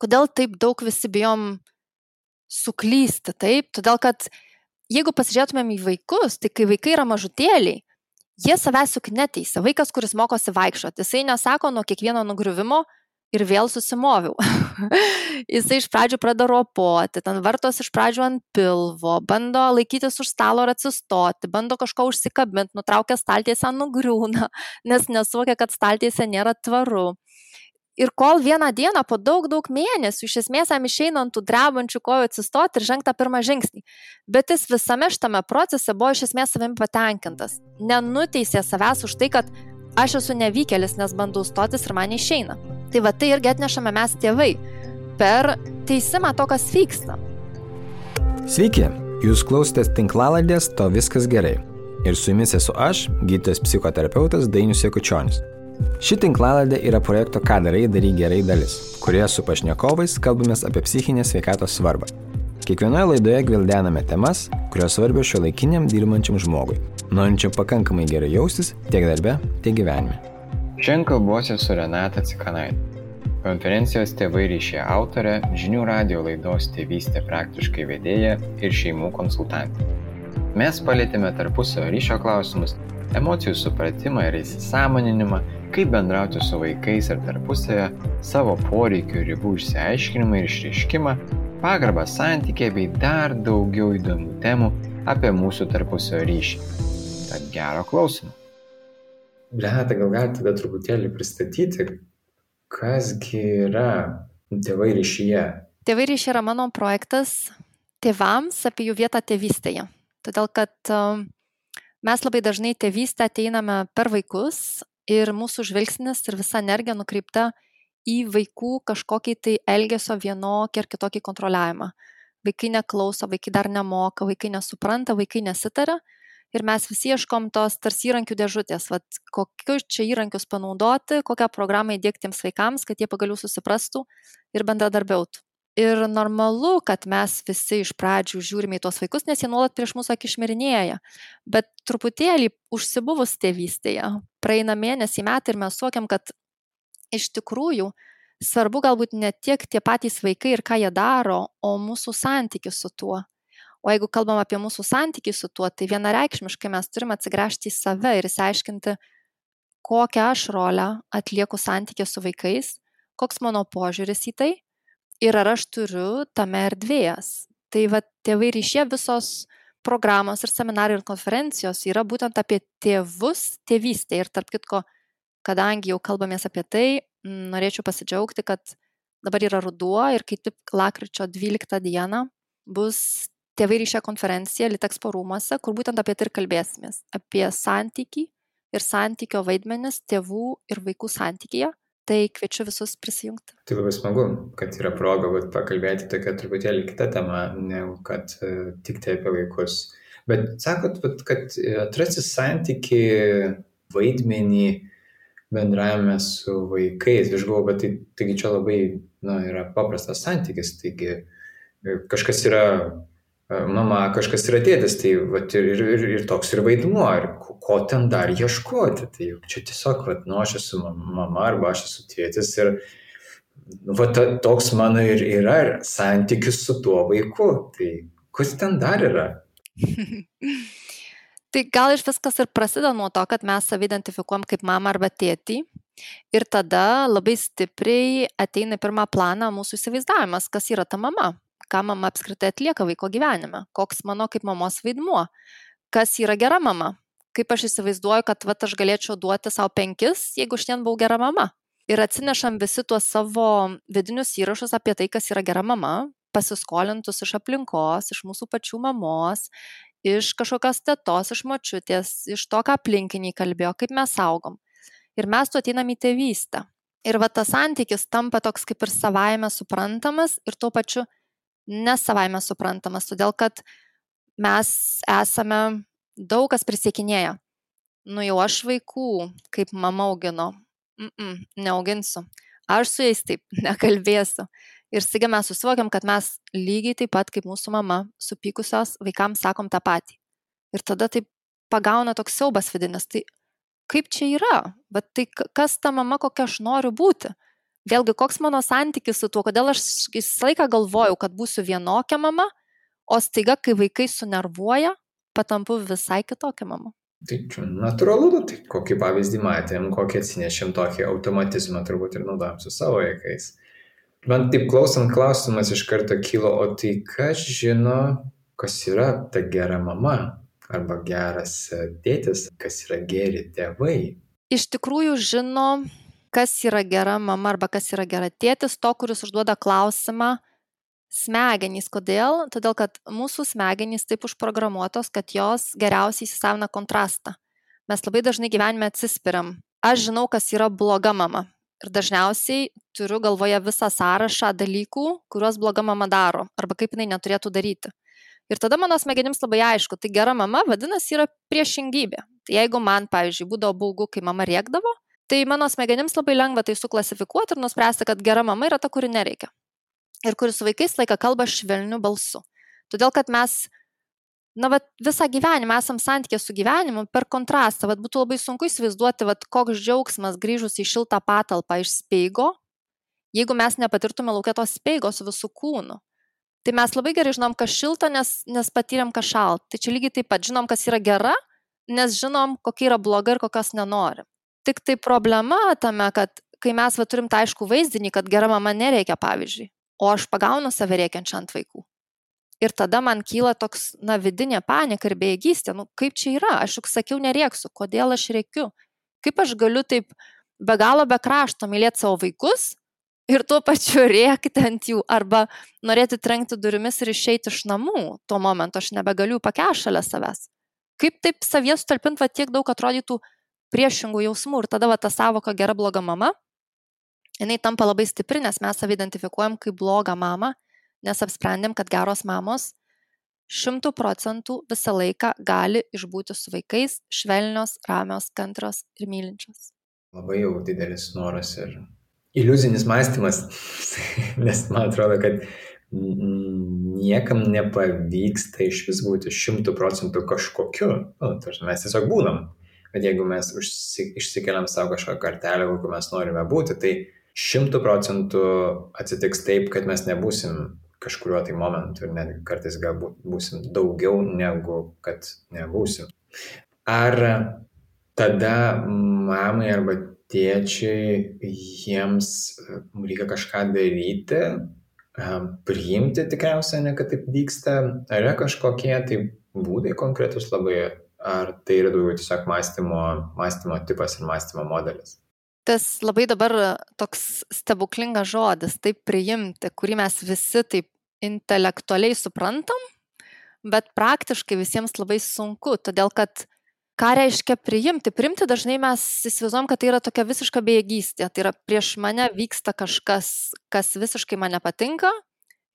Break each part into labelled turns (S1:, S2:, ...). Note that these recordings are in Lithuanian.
S1: Kodėl taip daug visi bijom suklysti, taip? Todėl, kad jeigu pasižiūrėtumėm į vaikus, tai kai vaikai yra mažutėliai, jie savęs juk neteisia. Vaikas, kuris mokosi vaikščioti, jisai nesako nuo kiekvieno nugriuvimo ir vėl susimoviau. Jisai iš pradžių pradeda ropoti, ten vartos iš pradžių ant pilvo, bando laikytis už stalo ir atsistoti, bando kažko užsikabinti, nutraukia staltiesę, nugriūna, nes nesuvokia, kad staltiesė nėra tvaru. Ir kol vieną dieną po daug mėnesių iš esmės jam išeina ant tų drebančių kojų atsistoti ir žengti tą pirmą žingsnį. Bet jis visame šitame procese buvo iš esmės savimi patenkintas. Nenuteisė savęs už tai, kad aš esu nevykėlis, nes bandau stotis ir man išeina. Tai va tai irgi atnešame mes tėvai per teisimą to, kas vyksta.
S2: Sveiki, jūs klausotės tinklalaidės To viskas gerai. Ir su jumis esu aš, gydytojas psichoterapeutas Dainius Jakučionis. Ši tinklalaidė yra projekto Ką darai, daryk gerai dalis, kurioje su pašnekovais kalbamės apie psichinės sveikatos svarbą. Kiekvienoje laidoje gvildename temas, kurios svarbios šiuolaikiniam dirbančiam žmogui, norinčiam pakankamai gerai jaustis tiek darbe, tiek gyvenime.
S3: Šiandien kalbuosi su Renata Cikanaite, konferencijos Tėvai ryšyje autorė, žinių radijo laidos Tėvystė praktiškai vedėja ir šeimų konsultantė. Mes palietėme tarpusavio ryšio klausimus, emocijų supratimą ir įsisąmoninimą, kaip bendrauti su vaikais ir tarpusavio, savo poreikių ir ribų išsiaiškinimą ir išreiškimą, pagarbą santykiai bei dar daugiau įdomių temų apie mūsų tarpusavio ryšį. Tad gero klausimų.
S4: Renata, gal galite tada truputėlį pristatyti, kasgi yra Tėvai ryšyje?
S1: Tėvai ryšyje yra mano projektas tėvams apie jų vietą tėvystėje. Todėl, kad mes labai dažnai tėvystę ateiname per vaikus ir mūsų žvilgsnis ir visa energija nukreipta į vaikų kažkokį tai elgesio vienokį ar kitokį kontroliavimą. Vaikai neklauso, vaikai dar nemoka, vaikai nesupranta, vaikai nesitaria ir mes visi ieškom tos tarsi įrankių dėžutės, kokius čia įrankius panaudoti, kokią programą įdiegti tiems vaikams, kad jie pagaliau susiprastų ir bendradarbiautų. Ir normalu, kad mes visi iš pradžių žiūrime į tuos vaikus, nes jie nuolat prieš mūsų akį šmirinėja. Bet truputėlį užsibuvus tėvystėje, praeina mėnesį, metai ir mes suokiam, kad iš tikrųjų svarbu galbūt ne tiek tie patys vaikai ir ką jie daro, o mūsų santykis su tuo. O jeigu kalbam apie mūsų santykį su tuo, tai vienareikšmiškai mes turime atsigręžti į save ir įsiaiškinti, kokią aš rolę atlieku santykį su vaikais, koks mano požiūris į tai. Ir ar aš turiu tame erdvės. Tai Tėvai ryšyje visos programos ir seminarai ir konferencijos yra būtent apie tėvus tėvystę. Ir tarp kitko, kadangi jau kalbamės apie tai, norėčiau pasidžiaugti, kad dabar yra ruduo ir kaip tik lapkričio 12 dieną bus Tėvai ryšyje konferencija Litexpo rūmuose, kur būtent apie tai ir kalbėsimės. Apie santykį ir santykio vaidmenis tėvų ir vaikų santykyje. Tai kviečiu visus prisijungti.
S4: Tai labai smagu, kad yra proga pakalbėti tokią truputėlį kitą temą, negu kad tik tai apie vaikus. Bet sakot, kad atrasti santyki vaidmenį bendravime su vaikais. Aš galvoju, bet taigi čia labai yra paprastas santykis. Taigi kažkas yra mama, kažkas yra tėtis, tai ir toks ir vaidmuo, ir ko ten dar ieškoti. Tai čia tiesiog, aš esu mama arba aš esu tėtis ir toks mano ir yra santykis su tuo vaiku. Tai kas ten dar yra?
S1: Tai gal iš viskas ir prasideda nuo to, kad mes save identifikuojam kaip mamą arba tėtį ir tada labai stipriai ateina į pirmą planą mūsų įsivaizdavimas, kas yra ta mama. Ką mama apskritai atlieka vaiko gyvenime, koks mano kaip mamos vaidmuo, kas yra gera mama, kaip aš įsivaizduoju, kad aš galėčiau duoti savo 5, jeigu šiandien buvau gera mama. Ir atsinešam visi tuos savo vidinius įrašus apie tai, kas yra gera mama, pasiskolintus iš aplinkos, iš mūsų pačių mamos, iš kažkokios tetos, iš močiutės, iš to, ką aplinkiniai kalbėjo, kaip mes augom. Ir mes tu ateinam į tėvystę. Ir tas santykis tampa toks kaip ir savaime suprantamas ir tuo pačiu nesavaime suprantamas, todėl kad mes esame daug kas prisiekinėję. Jau aš vaikų, kaip mama augino, neauginsiu. Aš su jais taip nekalbėsiu. Ir staiga mes susivokiam, kad mes lygiai taip pat kaip mūsų mama, supykusios vaikams sakom tą patį. Ir tada taip pagauna toks siaubas vidinis. Tai kaip čia yra? Bet tai kas ta mama, kokia aš noriu būti? Vėlgi, koks mano santykis su tuo, kodėl aš visą laiką galvojau, kad būsiu vienokia mama, o staiga, kai vaikai sunervuoja, patampu visai kitokia mama.
S4: Tai čia natūralu, tai kokį pavyzdį matėm, kokį atsinešėm tokį automatizmą turbūt ir naudojam su savo vaikais. Man taip klausant klausimas iš karto kilo, o tai kas žino, kas yra ta gera mama arba geras tėtis, kas yra geri tėvai?
S1: Iš tikrųjų žino, kas yra gera mama arba kas yra gera tėtis, to, kuris užduoda klausimą, smegenys. Kodėl? Todėl, kad mūsų smegenys taip užprogramuotos, kad jos geriausiai įsisavina kontrastą. Mes labai dažnai gyvenime atsispiriam. Aš žinau, kas yra bloga mama. Ir dažniausiai turiu galvoje visą sąrašą dalykų, kuriuos bloga mama daro, arba kaip jinai neturėtų daryti. Ir tada mano smegenims labai aišku, tai gera mama vadinasi yra priešingybė. Tai jeigu man, pavyzdžiui, būdavo baugu, kai mama rėkdavo, tai mano smegenims labai lengva tai suklasifikuoti ir nuspręsti, kad gera mama yra ta, kuri nereikia. Ir kuris su vaikais laiką kalba švelniu balsu. Todėl, kad mes, visą gyvenimą esam santykė su gyvenimu per kontrastą. Būtų labai sunku įsivaizduoti, koks džiaugsmas grįžus į šiltą patalpą iš speigo, jeigu mes nepatirtume laukia tos speigos su visų kūnu. Tai mes labai gerai žinom, kas šilta, nes patyrėm, kas šalta. Tai čia lygiai taip pat žinom, kas yra gera, nes žinom, kokia yra bloga ir kokios nenorim. Tik tai problema tame, kad kai mes turim tą aišku vaizdinį, kad gera mama nereikia, pavyzdžiui, o aš pagaunu save rėkiančią ant vaikų. Ir tada man kyla toks, vidinė panika ir bejėgystė. Kaip čia yra? Aš juk sakiau nerėksiu. Kodėl aš rėkiu? Kaip aš galiu taip be galo be krašto mylėti savo vaikus ir tuo pačiu rėkti ant jų arba norėti trenkti durimis ir išeiti iš namų. Tuo momentu aš nebegaliu pakęsti šalia savęs. Kaip taip savyje sutalpinti tiek daug atrodytų priešingų jausmų ir tada ta savoka gera bloga mama, jinai tampa labai stipri, nes mes save identifikuojam kaip blogą mamą, nes apsprendėm, kad geros mamos 100% visą laiką gali išbūti su vaikais švelnios, ramios, kantrios ir mylinčios.
S4: Labai jau didelis noras ir iliuzinis mąstymas, nes man atrodo, kad niekam nepavyksta iš vis būti 100% kažkokiu. Mes tiesiog būnam. Bet jeigu mes išsikeliam savo kažką kartelę, kokiu mes norime būti, tai 100% atsitiks taip, kad mes nebūsim kažkuriuo tai momentu ir net kartais galbūt būsim daugiau negu kad nebūsim. Ar tada mamai arba tėčiai jiems reikia kažką daryti, priimti tikriausiai, ne kad taip vyksta, ar yra kažkokie tai būdai konkretus labai, ar tai yra daugiau tiesiog mąstymo tipas ir mąstymo modelis?
S1: Tas labai dabar toks stebuklingas žodis, taip priimti, kurį mes visi taip intelektualiai suprantam, bet praktiškai visiems labai sunku, todėl kad ką reiškia priimti? Priimti dažnai mes įsivaizduojam, kad tai yra tokia visiška bejėgystė, tai yra prieš mane vyksta kažkas, kas visiškai man nepatinka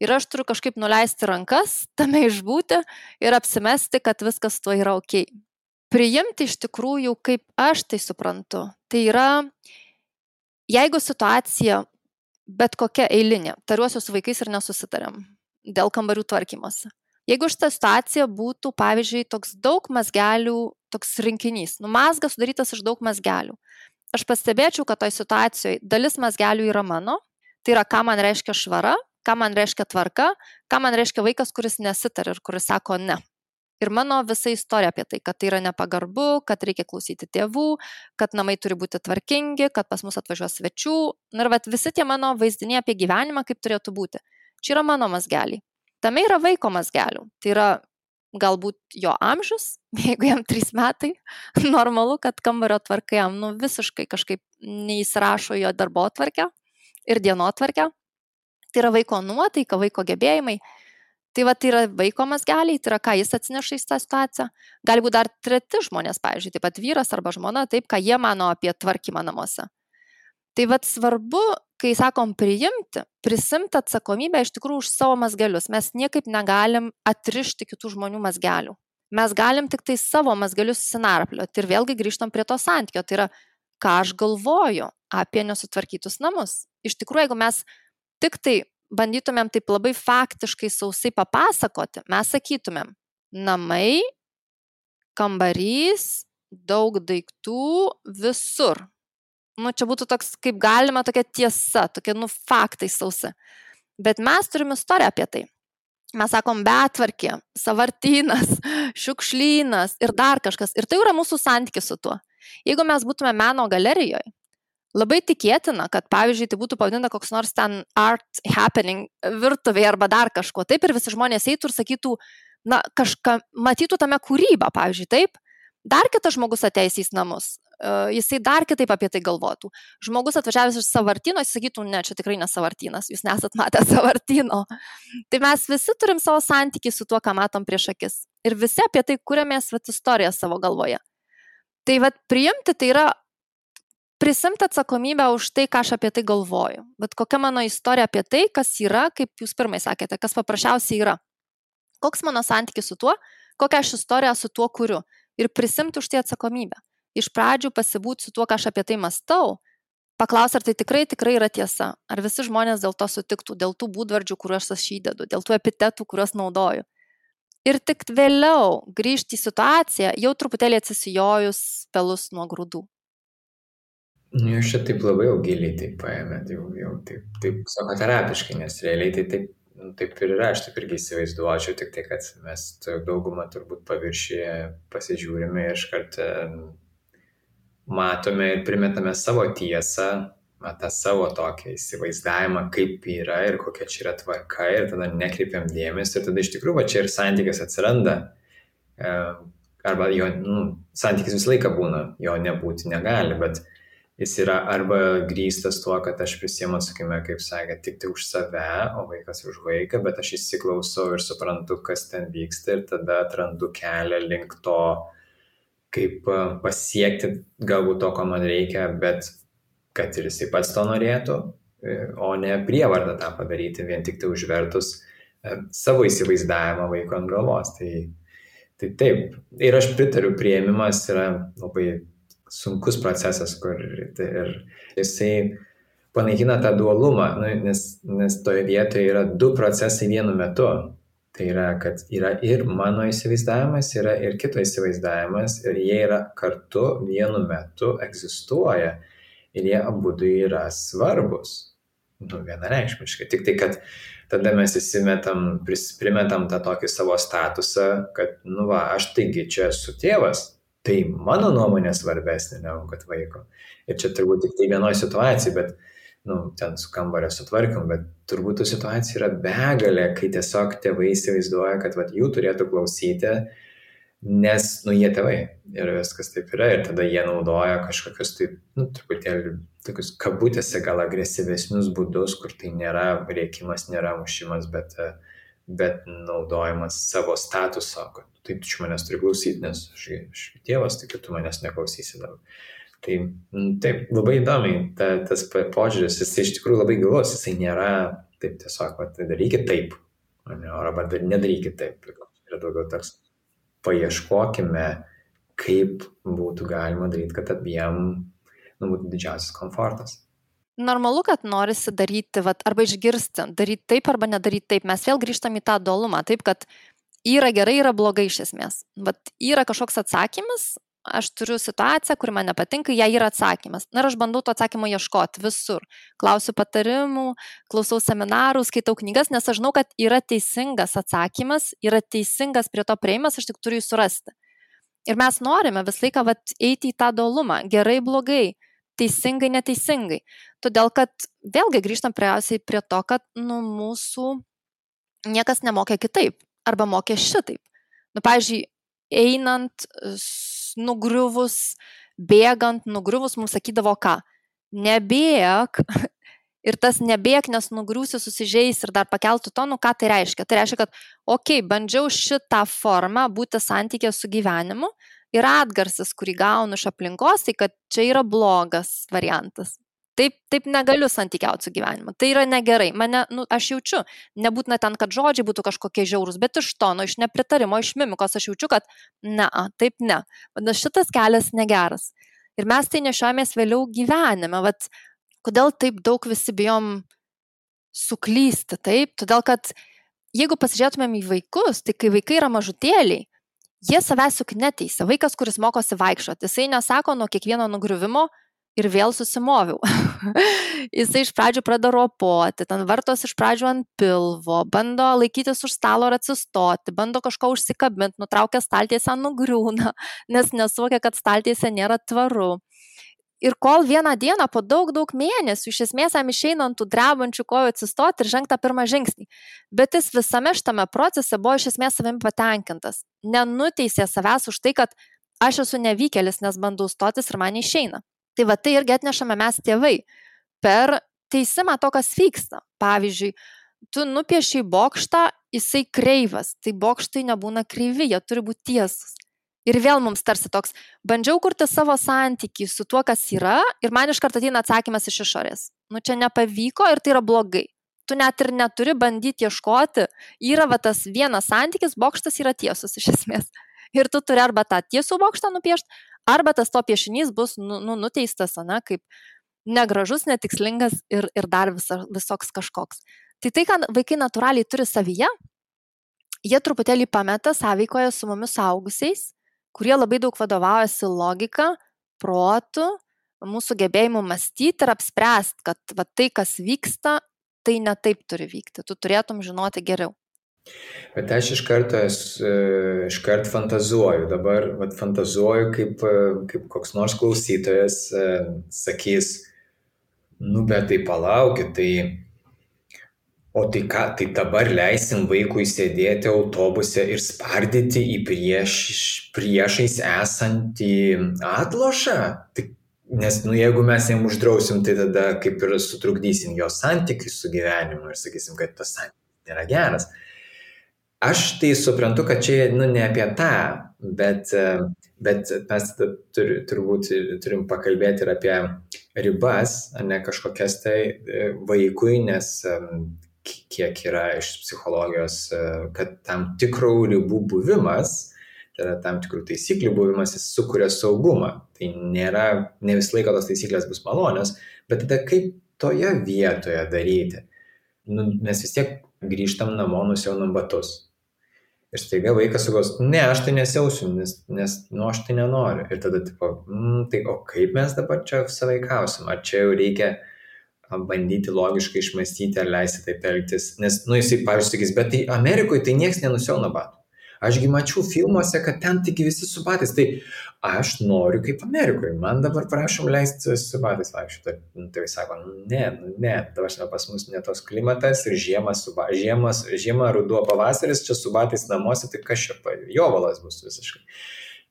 S1: ir aš turiu kažkaip nuleisti rankas, tame išbūti ir apsimesti, kad viskas tuo yra ok. Priimti iš tikrųjų, kaip aš tai suprantu, tai yra, jeigu situacija bet kokia eilinė, tariuosi su vaikais ir nesusitariam dėl kambarių tvarkymosi. Jeigu šita situacija būtų, pavyzdžiui, toks daug mazgelių, toks rinkinys, mazgas sudarytas iš daug mazgelių, aš pastebėčiau, kad toj situacijoje dalis mazgelių yra mano, tai yra, ką man reiškia švara, ką man reiškia tvarka, ką man reiškia vaikas, kuris nesitar ir kuris sako ne. Ir mano visa istorija apie tai, kad tai yra nepagarbu, kad reikia klausyti tėvų, kad namai turi būti tvarkingi, kad pas mus atvažiuos svečių. Ir visi tie mano vaizdiniai apie gyvenimą, kaip turėtų būti. Čia yra mano mazgeliai. Tame yra vaiko mazgelių. Tai yra galbūt jo amžius, jeigu jam 3 metai, normalu, kad kambario tvarka jam visiškai kažkaip neįsirašo jo darbotvarkę ir dienotvarkę. Tai yra vaiko nuotaika, vaiko gebėjimai. Tai yra vaiko mazgeliai, tai yra ką jis atsineša į tą situaciją. Gali būti dar treti žmonės, pavyzdžiui, taip pat vyras arba žmona, taip, ką jie mano apie tvarkymą namuose. Tai svarbu, kai sakom priimti, prisimti atsakomybę iš tikrųjų už savo mazgelius. Mes niekaip negalim atrišti kitų žmonių mazgelių. Mes galim tik tai savo mazgelius sinarplioti ir vėlgi grįžtam prie to santykio. Tai yra, ką aš galvoju apie nesutvarkytus namus. Iš tikrųjų, jeigu mes tik tai bandytumėm taip labai faktiškai sausai papasakoti, mes sakytumėm, namai, kambarys, daug daiktų visur. čia būtų toks, kaip galima, tokia tiesa, tokia, faktai sausi. Bet mes turim istoriją apie tai. Mes sakom betvarkė, savartynas, šiukšlynas ir dar kažkas. Ir tai yra mūsų santykis su tuo. Jeigu mes būtume meno galerijoje, labai tikėtina, kad, pavyzdžiui, tai būtų pavadinta koks nors ten art happening virtuvėje arba dar kažko. Taip ir visi žmonės eitų ir sakytų, kažką matytų tame kūrybą, pavyzdžiui, taip. Dar kitas žmogus ateis į namus, jisai dar kitaip apie tai galvotų. Žmogus atvažiavęs iš savartyno, jis sakytų, ne, čia tikrai ne savartynas, jūs nesat matę savartyno. Tai mes visi turim savo santykį su tuo, ką matom prieš akis. Ir visi apie tai kuriamės istoriją savo galvoje. Tai priimti tai yra prisimti atsakomybę už tai, ką aš apie tai galvoju. Bet kokia mano istorija apie tai, kas yra, kaip jūs pirmai sakėte, kas paprasčiausiai yra. Koks mano santykis su tuo, kokią aš istoriją su tuo kuriu. Ir prisimti už tai atsakomybę. Iš pradžių pasibūti su tuo, ką aš apie tai mąstau, paklausti, ar tai tikrai yra tiesa, ar visi žmonės dėl to sutiktų, dėl tų būdvardžių, kuriuos aš įdedu, dėl tų epitetų, kuriuos naudoju. Ir tik vėliau grįžti į situaciją, jau truputėlį atsisijojus pelus nuo grūdų.
S4: Jūs čia taip labai jau giliai taip paėmėt, jau taip psichoterapiškai, nes realiai tai taip ir yra, aš taip irgi įsivaizduočiau, tik tai, kad mes daugumą turbūt paviršyje pasižiūrime ir iškart matome ir primetame savo tiesą, tą savo tokį įsivaizdavimą, kaip yra ir kokia čia yra tvarka ir tada nekreipiam dėmesį ir tada iš tikrųjų čia ir santykis atsiranda. Arba jo, santykis visą laiką būna, jo nebūti negali, bet jis yra arba grįstas tuo, kad aš prisiemu atsakymę, kaip sakė, tik tai už save, o vaikas už vaiką, bet aš įsiklausau ir suprantu, kas ten vyksta ir tada atrandu kelią link to, kaip pasiekti galbūt to, ko man reikia, bet kad ir jisai pats to norėtų, o ne prievartą tą padaryti, vien tik tai užvertus savo įsivaizdavimą vaiko ant galvos. Tai taip. Ir aš pritariu, priėmimas yra labai sunkus procesas, kur ir jisai panaikina tą dualumą, nes toje vietoje yra du procesai vienu metu. Tai yra, kad yra ir mano įsivaizdavimas, yra ir kito įsivaizdavimas ir jie yra kartu vienu metu egzistuoja ir jie abudu yra svarbus. Vienareikšmiškai. Tik tai, kad tada mes primetam tą tokį savo statusą, kad, aš taigi čia esu tėvas. Tai mano nuomonė svarbesnė negu kad vaiko. Ir čia turbūt tik tai vienoje situacijoje, bet ten su kambario sutvarkim, bet turbūt tų situacijų yra begalė, kai tiesiog tėvai įsivaizduoja, kad jų turėtų klausyti, nes, jie tėvai ir viskas taip yra. Ir tada jie naudoja kažkokius truputėlį tokius kabutėse gal agresyvesnius būdus, kur tai nėra rėkimas, nėra mušimas, bet naudojimas savo statuso, kad tai tu manęs turi klausyti, nes aš tėvas, tai tu manęs neklausysi dabar. Tai taip, labai įdomiai tas požiūris, jisai iš tikrųjų labai gilus, jisai nėra taip tiesiog, darykit taip, arba nedarykit taip. Yra daugiau toks, paieškokime, kaip būtų galima daryti, kad abiem būtų didžiausias komfortas.
S1: Normalu, kad norisi daryti, arba išgirsti, daryti taip arba nedaryti taip. Mes vėl grįžtam į tą dualumą, taip, kad yra gerai, yra blogai iš esmės. Yra kažkoks atsakymas, aš turiu situaciją, kuri man nepatinka, jai yra atsakymas. Ir aš bandau to atsakymo ieškoti visur. Klausiu patarimų, klausau seminarų, skaitau knygas, nes aš žinau, kad yra teisingas atsakymas, yra teisingas prie to prieimas, aš tik turiu jį surasti. Ir mes norime visą laiką eiti į tą dualumą, gerai, blogai, teisingai, neteisingai. Todėl, kad vėlgi grįžtam prie to, kad mūsų niekas nemokė kitaip, arba mokė šitaip. Pavyzdžiui, einant, nugriuvus, bėgant, nugriuvus, mums sakydavo ką? Nebėk. Ir tas nebėk, nes nugriūsi, susižeis ir dar pakeltų tonų, ką tai reiškia? Tai reiškia, kad bandžiau šitą formą būti santykė su gyvenimu ir atgarsis, kurį gaunu iš aplinkos, tai kad čia yra blogas variantas. Taip negaliu santykiauti su gyvenimu. Tai yra negerai. Aš jaučiu, nebūtina ten, kad žodžiai būtų kažkokie žiaurūs, bet iš tono, iš nepritarimo, iš mimikos aš jaučiu, kad taip ne. Šitas kelias negeras. Ir mes tai nešiojamės vėliau gyvenime. Kodėl taip daug visi bijom suklysti, taip? Todėl, kad jeigu pasižiūrėtumėm į vaikus, tai kai vaikai yra mažutėliai, jie savęs juk neteisia. Vaikas, kuris mokosi vaikščioti, jisai nesako nuo kiekvieno nugriuvimo, ir vėl susimoviau. Jisai iš pradžių pradeda ropoti, ten vartos iš pradžių ant pilvo, bando laikytis už stalo ir atsistoti, bando kažko užsikabinti, nutraukia staltiesę, nugriūna, nes nesuvokia, kad staltiesė nėra tvaru. Ir kol vieną dieną po daug mėnesių iš esmės jam išeina ant tų drebančių kojų atsistoti ir žengti tą pirmą žingsnį. Bet jis visame šitame procese buvo iš esmės savimi patenkintas. Nenuteisė savęs už tai, kad aš esu nevykėlis, nes bandau stotis ir man neišeina. Tai va tai irgi atnešame mes tėvai per teisimą to, kas vyksta. Pavyzdžiui, tu nupiešiai bokštą, jisai kreivas, tai bokštai nebūna kreivi, jie turi būti tiesus. Ir vėl mums tarsi toks, bandžiau kurti savo santykį su tuo, kas yra, ir man iš karto ateina atsakymas iš išorės. Čia nepavyko ir tai yra blogai. Tu net ir neturi bandyti ieškoti, yra va tas vienas santykis, bokštas yra tiesus iš esmės. Ir tu turi arba tą tiesų bokštą nupiešti, arba tas to piešinys bus nuteistas, kaip negražus, netikslingas ir dar visoks kažkoks. Tai, ką vaikai natūraliai turi savyje, jie truputėlį pameta sąveikoje su mumis suaugusiais, kurie labai daug vadovaujasi logika, protu, mūsų gebėjimu mąstyti ir apspręsti, kad va, tai, kas vyksta, tai ne taip turi vykti. Tu turėtum žinoti geriau.
S4: Bet aš iškart fantazuoju. Dabar fantazuoju, kaip koks nors klausytojas sakys, bet tai palaukit, tai... O tai ką, tai dabar leisim vaikui sėdėti autobuse ir spardyti į priešais esantį atlošą? Nes jeigu mes jam uždrausim, tai tada kaip ir sutrukdysim jo santykių su gyvenimu ir sakysim, kad tas santykis nėra geras. Aš tai suprantu, kad čia ne apie tą, bet mes turbūt turim pakalbėti ir apie ribas, ne kažkokias tai vaikui, nes kiek yra iš psichologijos, kad tam tikrų ribų buvimas, tai yra tam tikrų taisyklių buvimas, jis sukuria saugumą. Tai ne visą laiką tos taisyklės bus malonios, bet tada kaip toje vietoje daryti? Mes vis tiek grįžtam namo, nusiaunam batus. Ir staiga vaikas sugos, ne, aš tai nesiausiu, nes aš tai nenoriu. Ir tada tai o kaip mes dabar čia sąveikausim? Ar čia jau reikia bandyti logiškai išmąstyti, ar leisti taip elgtis? Nes, jisai, pavyzdžiui, sakys, bet tai Amerikoje tai nieks nenusiauna batų. Ašgi mačiau filmuose, kad ten tik visi su batais. Tai aš noriu kaip Amerikoje. Man dabar prašom leisti su batais vaikščioti. Tai sako, ne, dabar pas mus ne tos klimatas ir žiema, ruduo, pavasaris, čia su batais namuose, tai kas čia jovalas bus visiškai.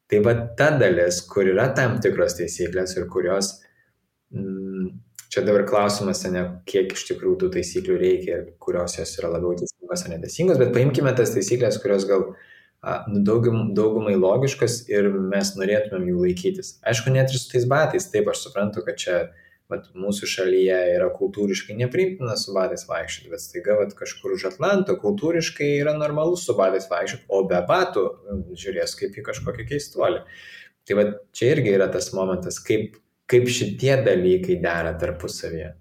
S4: Tai va ta dalis, kur yra tam tikros taisyklės ir kurios... Čia dabar klausimas, kiek iš tikrųjų tų taisyklių reikia ir kurios jos yra labiau teisingos ar neteisingos, bet paimkime tas taisyklės, kurios gal daugumai logiškas ir mes norėtumėm jų laikytis. Aišku, net ir su tais batais, taip aš suprantu, kad čia mūsų šalyje yra kultūriškai nepriimtina su batais vaikščioti, bet staiga kažkur už Atlanto kultūriškai yra normalu su batais vaikščioti, o be batų žiūrės kaip į kažkokį keistuolį. Tai čia irgi yra tas momentas, kaip šitie dalykai dera tarpusavyje.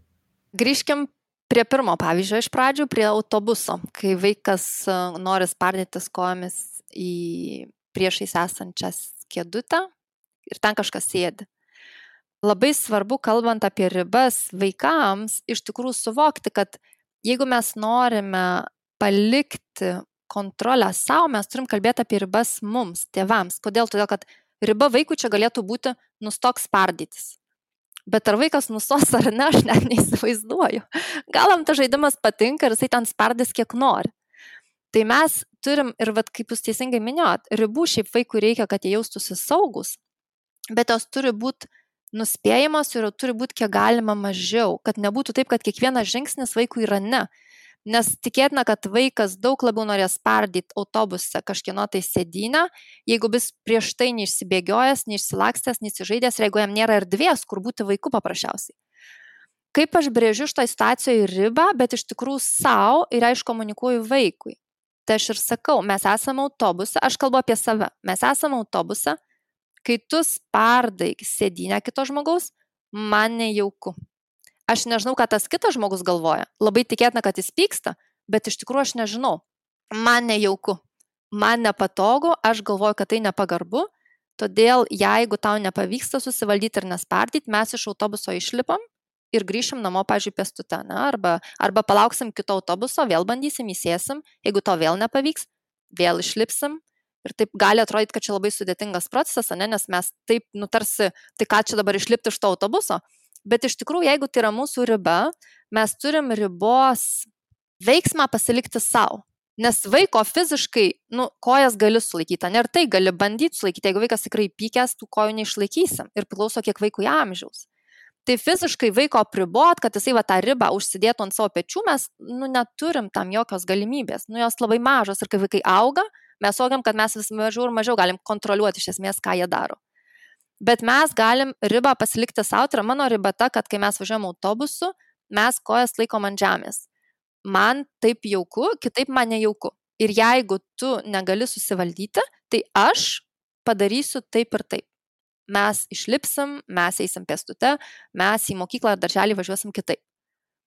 S1: Grįžkim prie pirmo pavyzdžio iš pradžių, prie autobuso, kai vaikas nori spardytis kojomis į priešais esančias kėdutę ir ten kažkas sėdi. Labai svarbu, kalbant apie ribas vaikams, iš tikrųjų suvokti, kad jeigu mes norime palikti kontrolę savo, mes turim kalbėti apie ribas mums, tėvams. Kodėl? Todėl, kad riba vaikui čia galėtų būti nustok spardytis. Bet ar vaikas nustos ar ne, aš net neįsivaizduoju. Gal jam tas žaidimas patinka ir jisai ten spardys kiek nori. Tai mes turim, ir kaip jūs teisingai minėjot, ribų šiaip vaikui reikia, kad jie jaustųsi saugus, bet jos turi būti nuspėjamos ir turi būti kiek galima mažiau, kad nebūtų taip, kad kiekvienas žingsnis vaikui yra ne. Nes tikėtina, kad vaikas daug labiau norės spardyti autobuse kažkieno tai sėdynę, jeigu bus prieš tai neišsibėgiojęs, neišsilakstęs, neįsižaidęs ir jeigu jam nėra erdvės, kur būti vaiku paprasčiausiai. Kaip aš brėžiu šitą situacijoje ribą, bet iš tikrųjų savo ir aš komunikuoju vaikui. Tai aš ir sakau, mes esame autobuse, aš kalbu apie save, mes esame autobuse, kai tu spardai sėdynę kito žmogaus, man nejauku. Aš nežinau, ką tas kitas žmogus galvoja. Labai tikėtina, kad jis pyksta, bet iš tikrųjų aš nežinau. Man nejauku, man nepatogu, aš galvoju, kad tai nepagarbu, Todėl, jeigu tau nepavyksta susivaldyti ir nespardyti, mes iš autobuso išlipam ir grįšim namo, pavyzdžiui, pėstute, arba palauksim kito autobuso, vėl bandysim, įsėsim, jeigu to vėl nepavyks, vėl išlipsim. Ir taip gali atrodyti, kad čia labai sudėtingas procesas, nes mes taip nutarsi, tai ką čia dabar išlipti iš to autobuso. Bet iš tikrųjų, jeigu tai yra mūsų riba, mes turim ribos veiksmą pasilikti savo. Nes vaiko fiziškai, kojas gali sulaikyti, ir tai gali bandyti sulaikyti. Jeigu vaikas tikrai pykęs, tų kojų neišlaikysim. Ir priklauso, kiek vaikui amžiaus. Tai fiziškai vaiko apribot, kad jisai tą ribą užsidėtų ant savo pečių, mes neturim tam jokios galimybės. Jos labai mažos ir kai vaikai auga, mes suvokiam, kad mes vis mažiau ir mažiau galim kontroliuoti iš esmės, ką jie daro. Bet mes galim ribą pasilikti savo. Tai yra mano riba ta, kad kai mes važiuojam autobusu, mes kojas laikom ant žemės. Man taip jauku, kitaip man nejauku. Ir jeigu tu negali susivaldyti, tai aš padarysiu taip ir taip. Mes išlipsim, mes eisim pėstute, mes į mokyklą ar darželį važiuosim kitaip.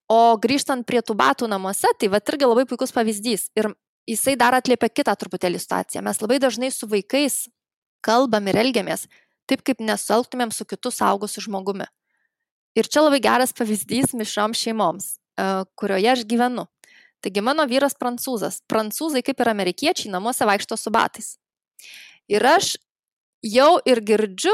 S1: O grįžtant prie tų batų namuose, tai irgi labai puikus pavyzdys. Ir jisai dar atliepia kitą truputėlį situaciją. Mes labai dažnai su vaikais kalbam ir elgiamės taip, kaip nesuelgtumėm su kitu suaugusiu žmogumi. Ir čia labai geras pavyzdys mišrioms šeimoms, kurioje aš gyvenu. Taigi mano vyras prancūzas. Prancūzai, kaip ir amerikiečiai, namuose vaikšto su batais. Ir aš jau ir girdžiu,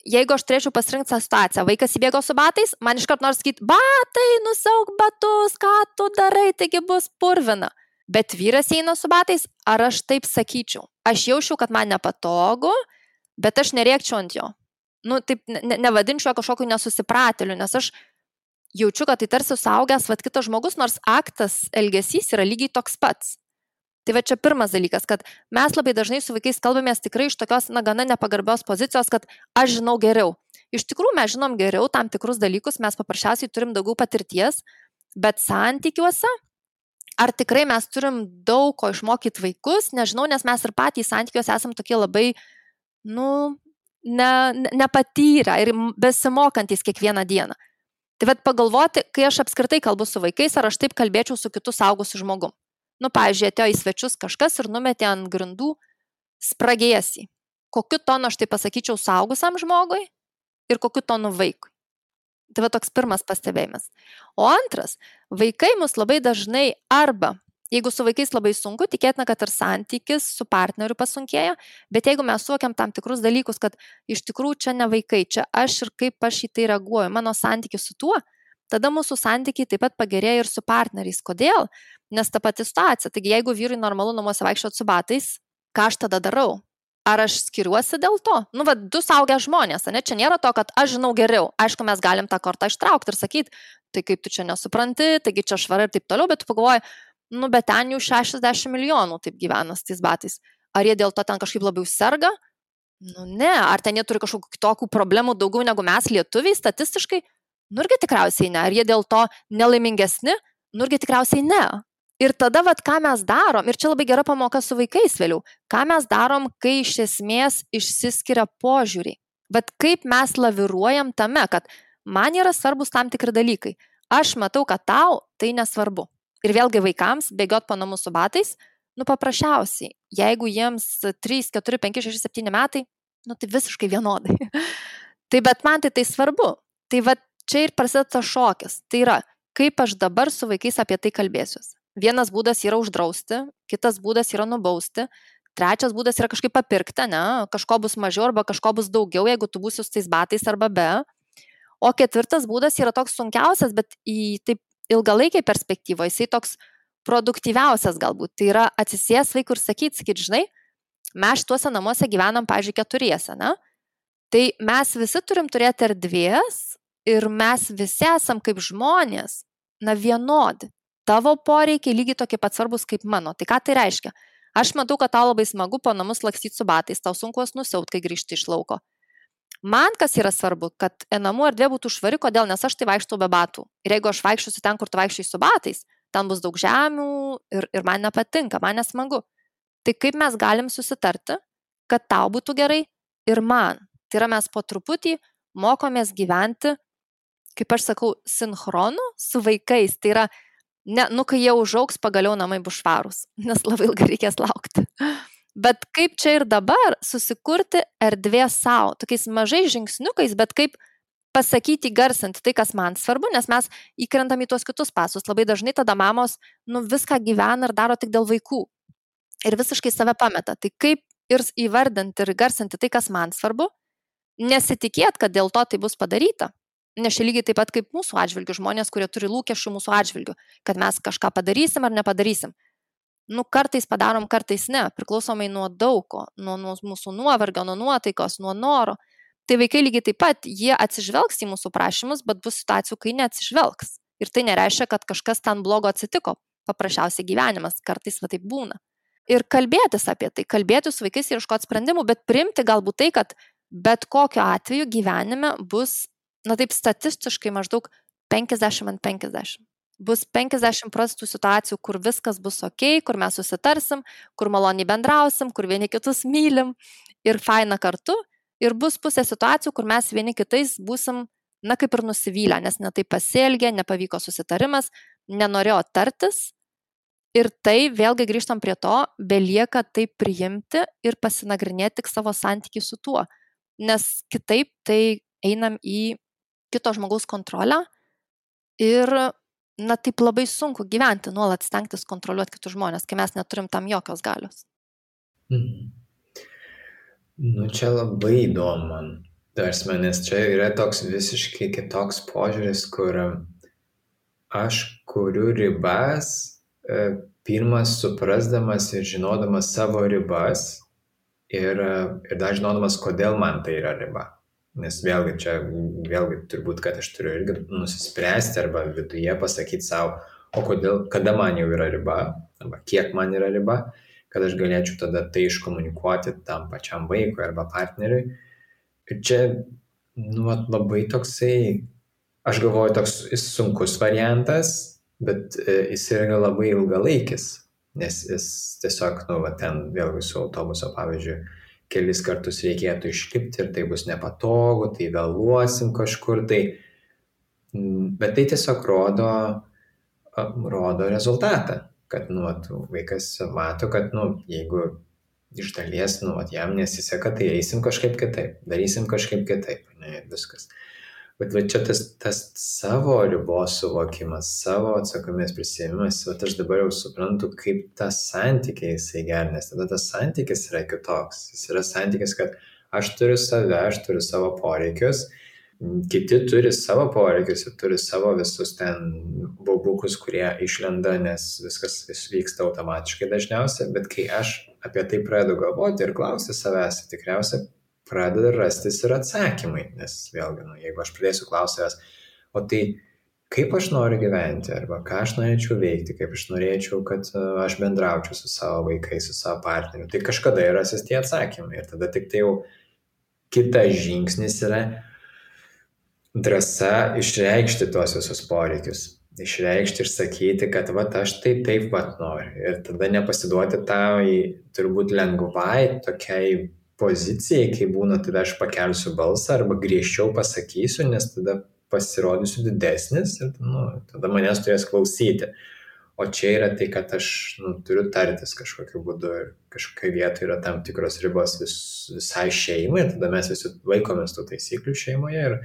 S1: jeigu aš turėčiau pasirinkti tą situaciją, vaikas įbėgo su batais, man iškart nors sakyti, batai, nusiauk batus, ką tu darai, taigi bus purvina. Bet vyras eina su batais, ar aš taip sakyčiau? Aš jaučiu, kad man nepatogu, bet aš nerėkčiau ant jo. Taip nevadinčiau kažkokiu nesusipratėliu, nes aš jaučiu, kad tai tarsi suaugęs kitas žmogus, nors aktas, elgesys yra lygiai toks pats. Tai čia pirmas dalykas, kad mes labai dažnai su vaikais kalbamės tikrai iš tokios, gana nepagarbios pozicijos, kad aš žinau geriau. Iš tikrųjų, mes žinom geriau tam tikrus dalykus, mes paprasčiausiai turim daugiau patirties, bet santykiuose, ar tikrai mes turim daug ko išmokyti vaikus, nežinau, nes mes ir patys santykiuose esam tokie labai, nepatyrę ir besimokantys kiekvieną dieną. Tai pagalvoti, kai aš apskritai kalbu su vaikais, ar aš taip kalbėčiau su kitu suaugusiu žmogum. Pavyzdžiui, atėjo į svečius kažkas ir numetė ant grindų spragėsį. Kokiu tonu aš tai pasakyčiau suaugusiam žmogui ir kokiu tonu vaikui. Tai toks pirmas pastebėjimas. O antras, vaikai mus labai dažnai arba, jeigu su vaikais labai sunku, tikėtina, kad ir santykis su partneriu pasunkėja, bet jeigu mes suvokiam tam tikrus dalykus, kad iš tikrųjų čia ne vaikai, čia aš ir kaip aš į tai reaguoju, mano santykis su tuo, tada mūsų santykiai taip pat pagerėja ir su partneriais. Kodėl? Nes ta pati situacija. Taigi, jeigu vyrui normalu namuose vaikščioti su batais, ką aš tada darau? Ar aš skiriuosi dėl to? Du suaugę žmonės, čia nėra to, kad aš žinau geriau. Aišku, mes galim tą kortą ištraukti ir sakyti, tai kaip tu čia nesupranti, taigi čia švara ir taip toliau, bet tu pagalvoji, bet ten jau 60 milijonų taip gyvena su tais batais. Ar jie dėl to ten kažkaip labiau serga? Ne. Ar ten jie turi kažkokių kitokių problemų daugiau negu mes lietuviai statistiškai? Irgi tikriausiai ne. Ar jie dėl to nelaimingesni? Irgi tikriausiai ne. Ir tada, ką mes darom, ir čia labai gera pamoka su vaikais vėliau, ką mes darom, kai iš esmės išsiskiria požiūriai. Kaip mes laviruojam tame, kad man yra svarbus tam tikri dalykai. Aš matau, kad tau tai nesvarbu. Ir vėlgi vaikams bėgiot po namus su batais, paprasčiausiai, jeigu jiems 3, 4, 5, 6, 7 metai, tai visiškai vienodai. Bet man tai svarbu. Tai čia ir prasideda tas šokis. Tai yra, kaip aš dabar su vaikais apie tai kalbėsiuosi. Vienas būdas yra uždrausti, kitas būdas yra nubausti, trečias būdas yra kažkaip papirkti, kažko bus mažiau arba kažko bus daugiau, jeigu tu būsi su tais batais arba be. O ketvirtas būdas yra toks sunkiausias, bet į taip ilgalaikiai perspektyvoje jisai toks produktyviausias galbūt. Tai yra atsisės vaikų ir sakyti, žinai, mes šituose namuose gyvenam, pavyzdžiui, 4, tai mes visi turim turėti erdvės ir mes visi esam kaip žmonės, vienodi. Tavo poreikiai lygiai tokie pat svarbus kaip mano. Tai ką tai reiškia? Aš matau, kad tau labai smagu po namus lakstyti su batais, tau sunku juos nusiaut, kai grįžti iš lauko. Man kas yra svarbu, kad namų erdvė būtų švari, kodėl? Nes aš tai vaikštau be batų. Ir jeigu aš vaikščiosiu ten, kur tu vaikščiai su batais, ten bus daug žemių ir man nepatinka, man nesmagu. Tai kaip mes galim susitarti, kad tau būtų gerai ir man? Tai yra mes po truputį mokomės gyventi, kaip aš sakau, sinchronu su vaikais. Tai yra, kai jie užaugs, pagaliau namai bus švarūs, nes labai ilgai reikės laukti. Bet kaip čia ir dabar susikurti erdvė savo, tokiais mažais žingsniukais, bet kaip pasakyti, garsinti tai, kas man svarbu, nes mes įkrentam į tuos kitus pasus. Labai dažnai tada mamos viską gyvena ir daro tik dėl vaikų. Ir visiškai save pameta. Tai kaip ir įvardinti ir garsinti tai, kas man svarbu, nesitikėt, kad dėl to tai bus padaryta. Nes čia lygiai taip pat kaip mūsų atžvilgių žmonės, kurie turi lūkesčių mūsų atžvilgių, kad mes kažką padarysim ar nepadarysim. Kartais padarom, kartais ne, priklausomai nuo daugo, nuo mūsų nuovargio, nuo nuotaikos, nuo noro. Tai vaikai lygiai taip pat, jie atsižvelgs į mūsų prašymus, bet bus situacijų, kai neatsižvelgs. Ir tai nereiškia, kad kažkas ten blogo atsitiko. Paprasčiausiai gyvenimas, kartais taip būna. Ir kalbėtis apie tai, kalbėtis su vaikais ir ieškoti sprendimų, bet priimti galbūt tai, kad bet kokiu atveju gyvenime bus, taip statistiškai maždaug 50/50. Bus 50% situacijų, kur viskas bus ok, kur mes susitarsim, kur maloniai bendrausim, kur vieni kitus mylim ir faina kartu. Ir bus pusė situacijų, kur mes vieni kitais būsim, kaip ir nusivylę, nes netai pasielgė, nepavyko susitarimas, nenorėjo tartis. Ir tai, vėlgi grįžtam prie to, belieka tai priimti ir pasinagrinėti tik savo santykį su tuo. Nes kitaip tai einam į kito žmogaus kontrolę ir, taip labai sunku gyventi, nuolat stengtis kontroliuoti kitus žmonės, kai mes neturim tam jokios galios.
S4: Čia labai įdomu man. Nes čia yra toks visiškai kitoks požiūris, kur aš kuriu ribas, pirmas suprasdamas ir žinodamas savo ribas ir dar žinodamas, kodėl man tai yra riba. Nes vėlgi turbūt, kad aš turiu irgi nusispręsti arba viduje pasakyti savo, kada man jau yra riba, arba kiek man yra riba, kad aš galėčiau tada tai iškomunikuoti tam pačiam vaikui arba partneriui. Ir čia, labai toksai, aš galvoju, toks sunkus variantas, bet jis yra labai ilgalaikis, nes jis tiesiog, ten vėlgi su autobuso, pavyzdžiui, kelis kartus reikėtų išlipti ir tai bus nepatogu, tai vėluosim kažkur, bet tai tiesiog rodo rezultatą, kad vaikas mato, kad jeigu iš dalies jam nesiseka, tai eisim kažkaip kitaip, darysim kažkaip kitaip, viskas. Bet čia tas savo ribos suvokimas, savo atsakomybės prisiėmimas, aš dabar jau suprantu, kaip tas santykis jisai geras, nes tada tas santykis yra kitoks. Jis yra santykis, kad aš turiu save, aš turiu savo poreikius, kiti turi savo poreikius ir turi savo visus ten baubukus, kurie išlenda, nes viskas vyksta automatiškai dažniausiai, bet kai aš apie tai pradedu galvoti ir klausti savęs, tikriausiai pradeda rastis ir atsakymai, nes vėlgi, jeigu aš pradėsiu klausti savęs, o tai kaip aš noriu gyventi, arba ką aš norėčiau veikti, kaip aš norėčiau, kad aš bendraučiau su savo vaikais, su savo partneriu, tai kažkada yra rasis tie atsakymai. Ir tada tik tai jau kitas žingsnis yra drąsa išreikšti tuos visus poreikius. Išreikšti ir sakyti, kad aš taip noriu. Ir tada nepasiduoti turbūt lengvai tokiai pozicijai, kai būna, tada aš pakelsiu balsą arba griežčiau pasakysiu, nes tada pasirodysiu didesnis ir tada manęs turės klausyti. O čia yra tai, kad aš turiu tartis kažkokiu būdu ir kažkokia vieta yra tam tikros ribos visai šeimai, ir tada mes visi laikomės tų taisyklių šeimoje ir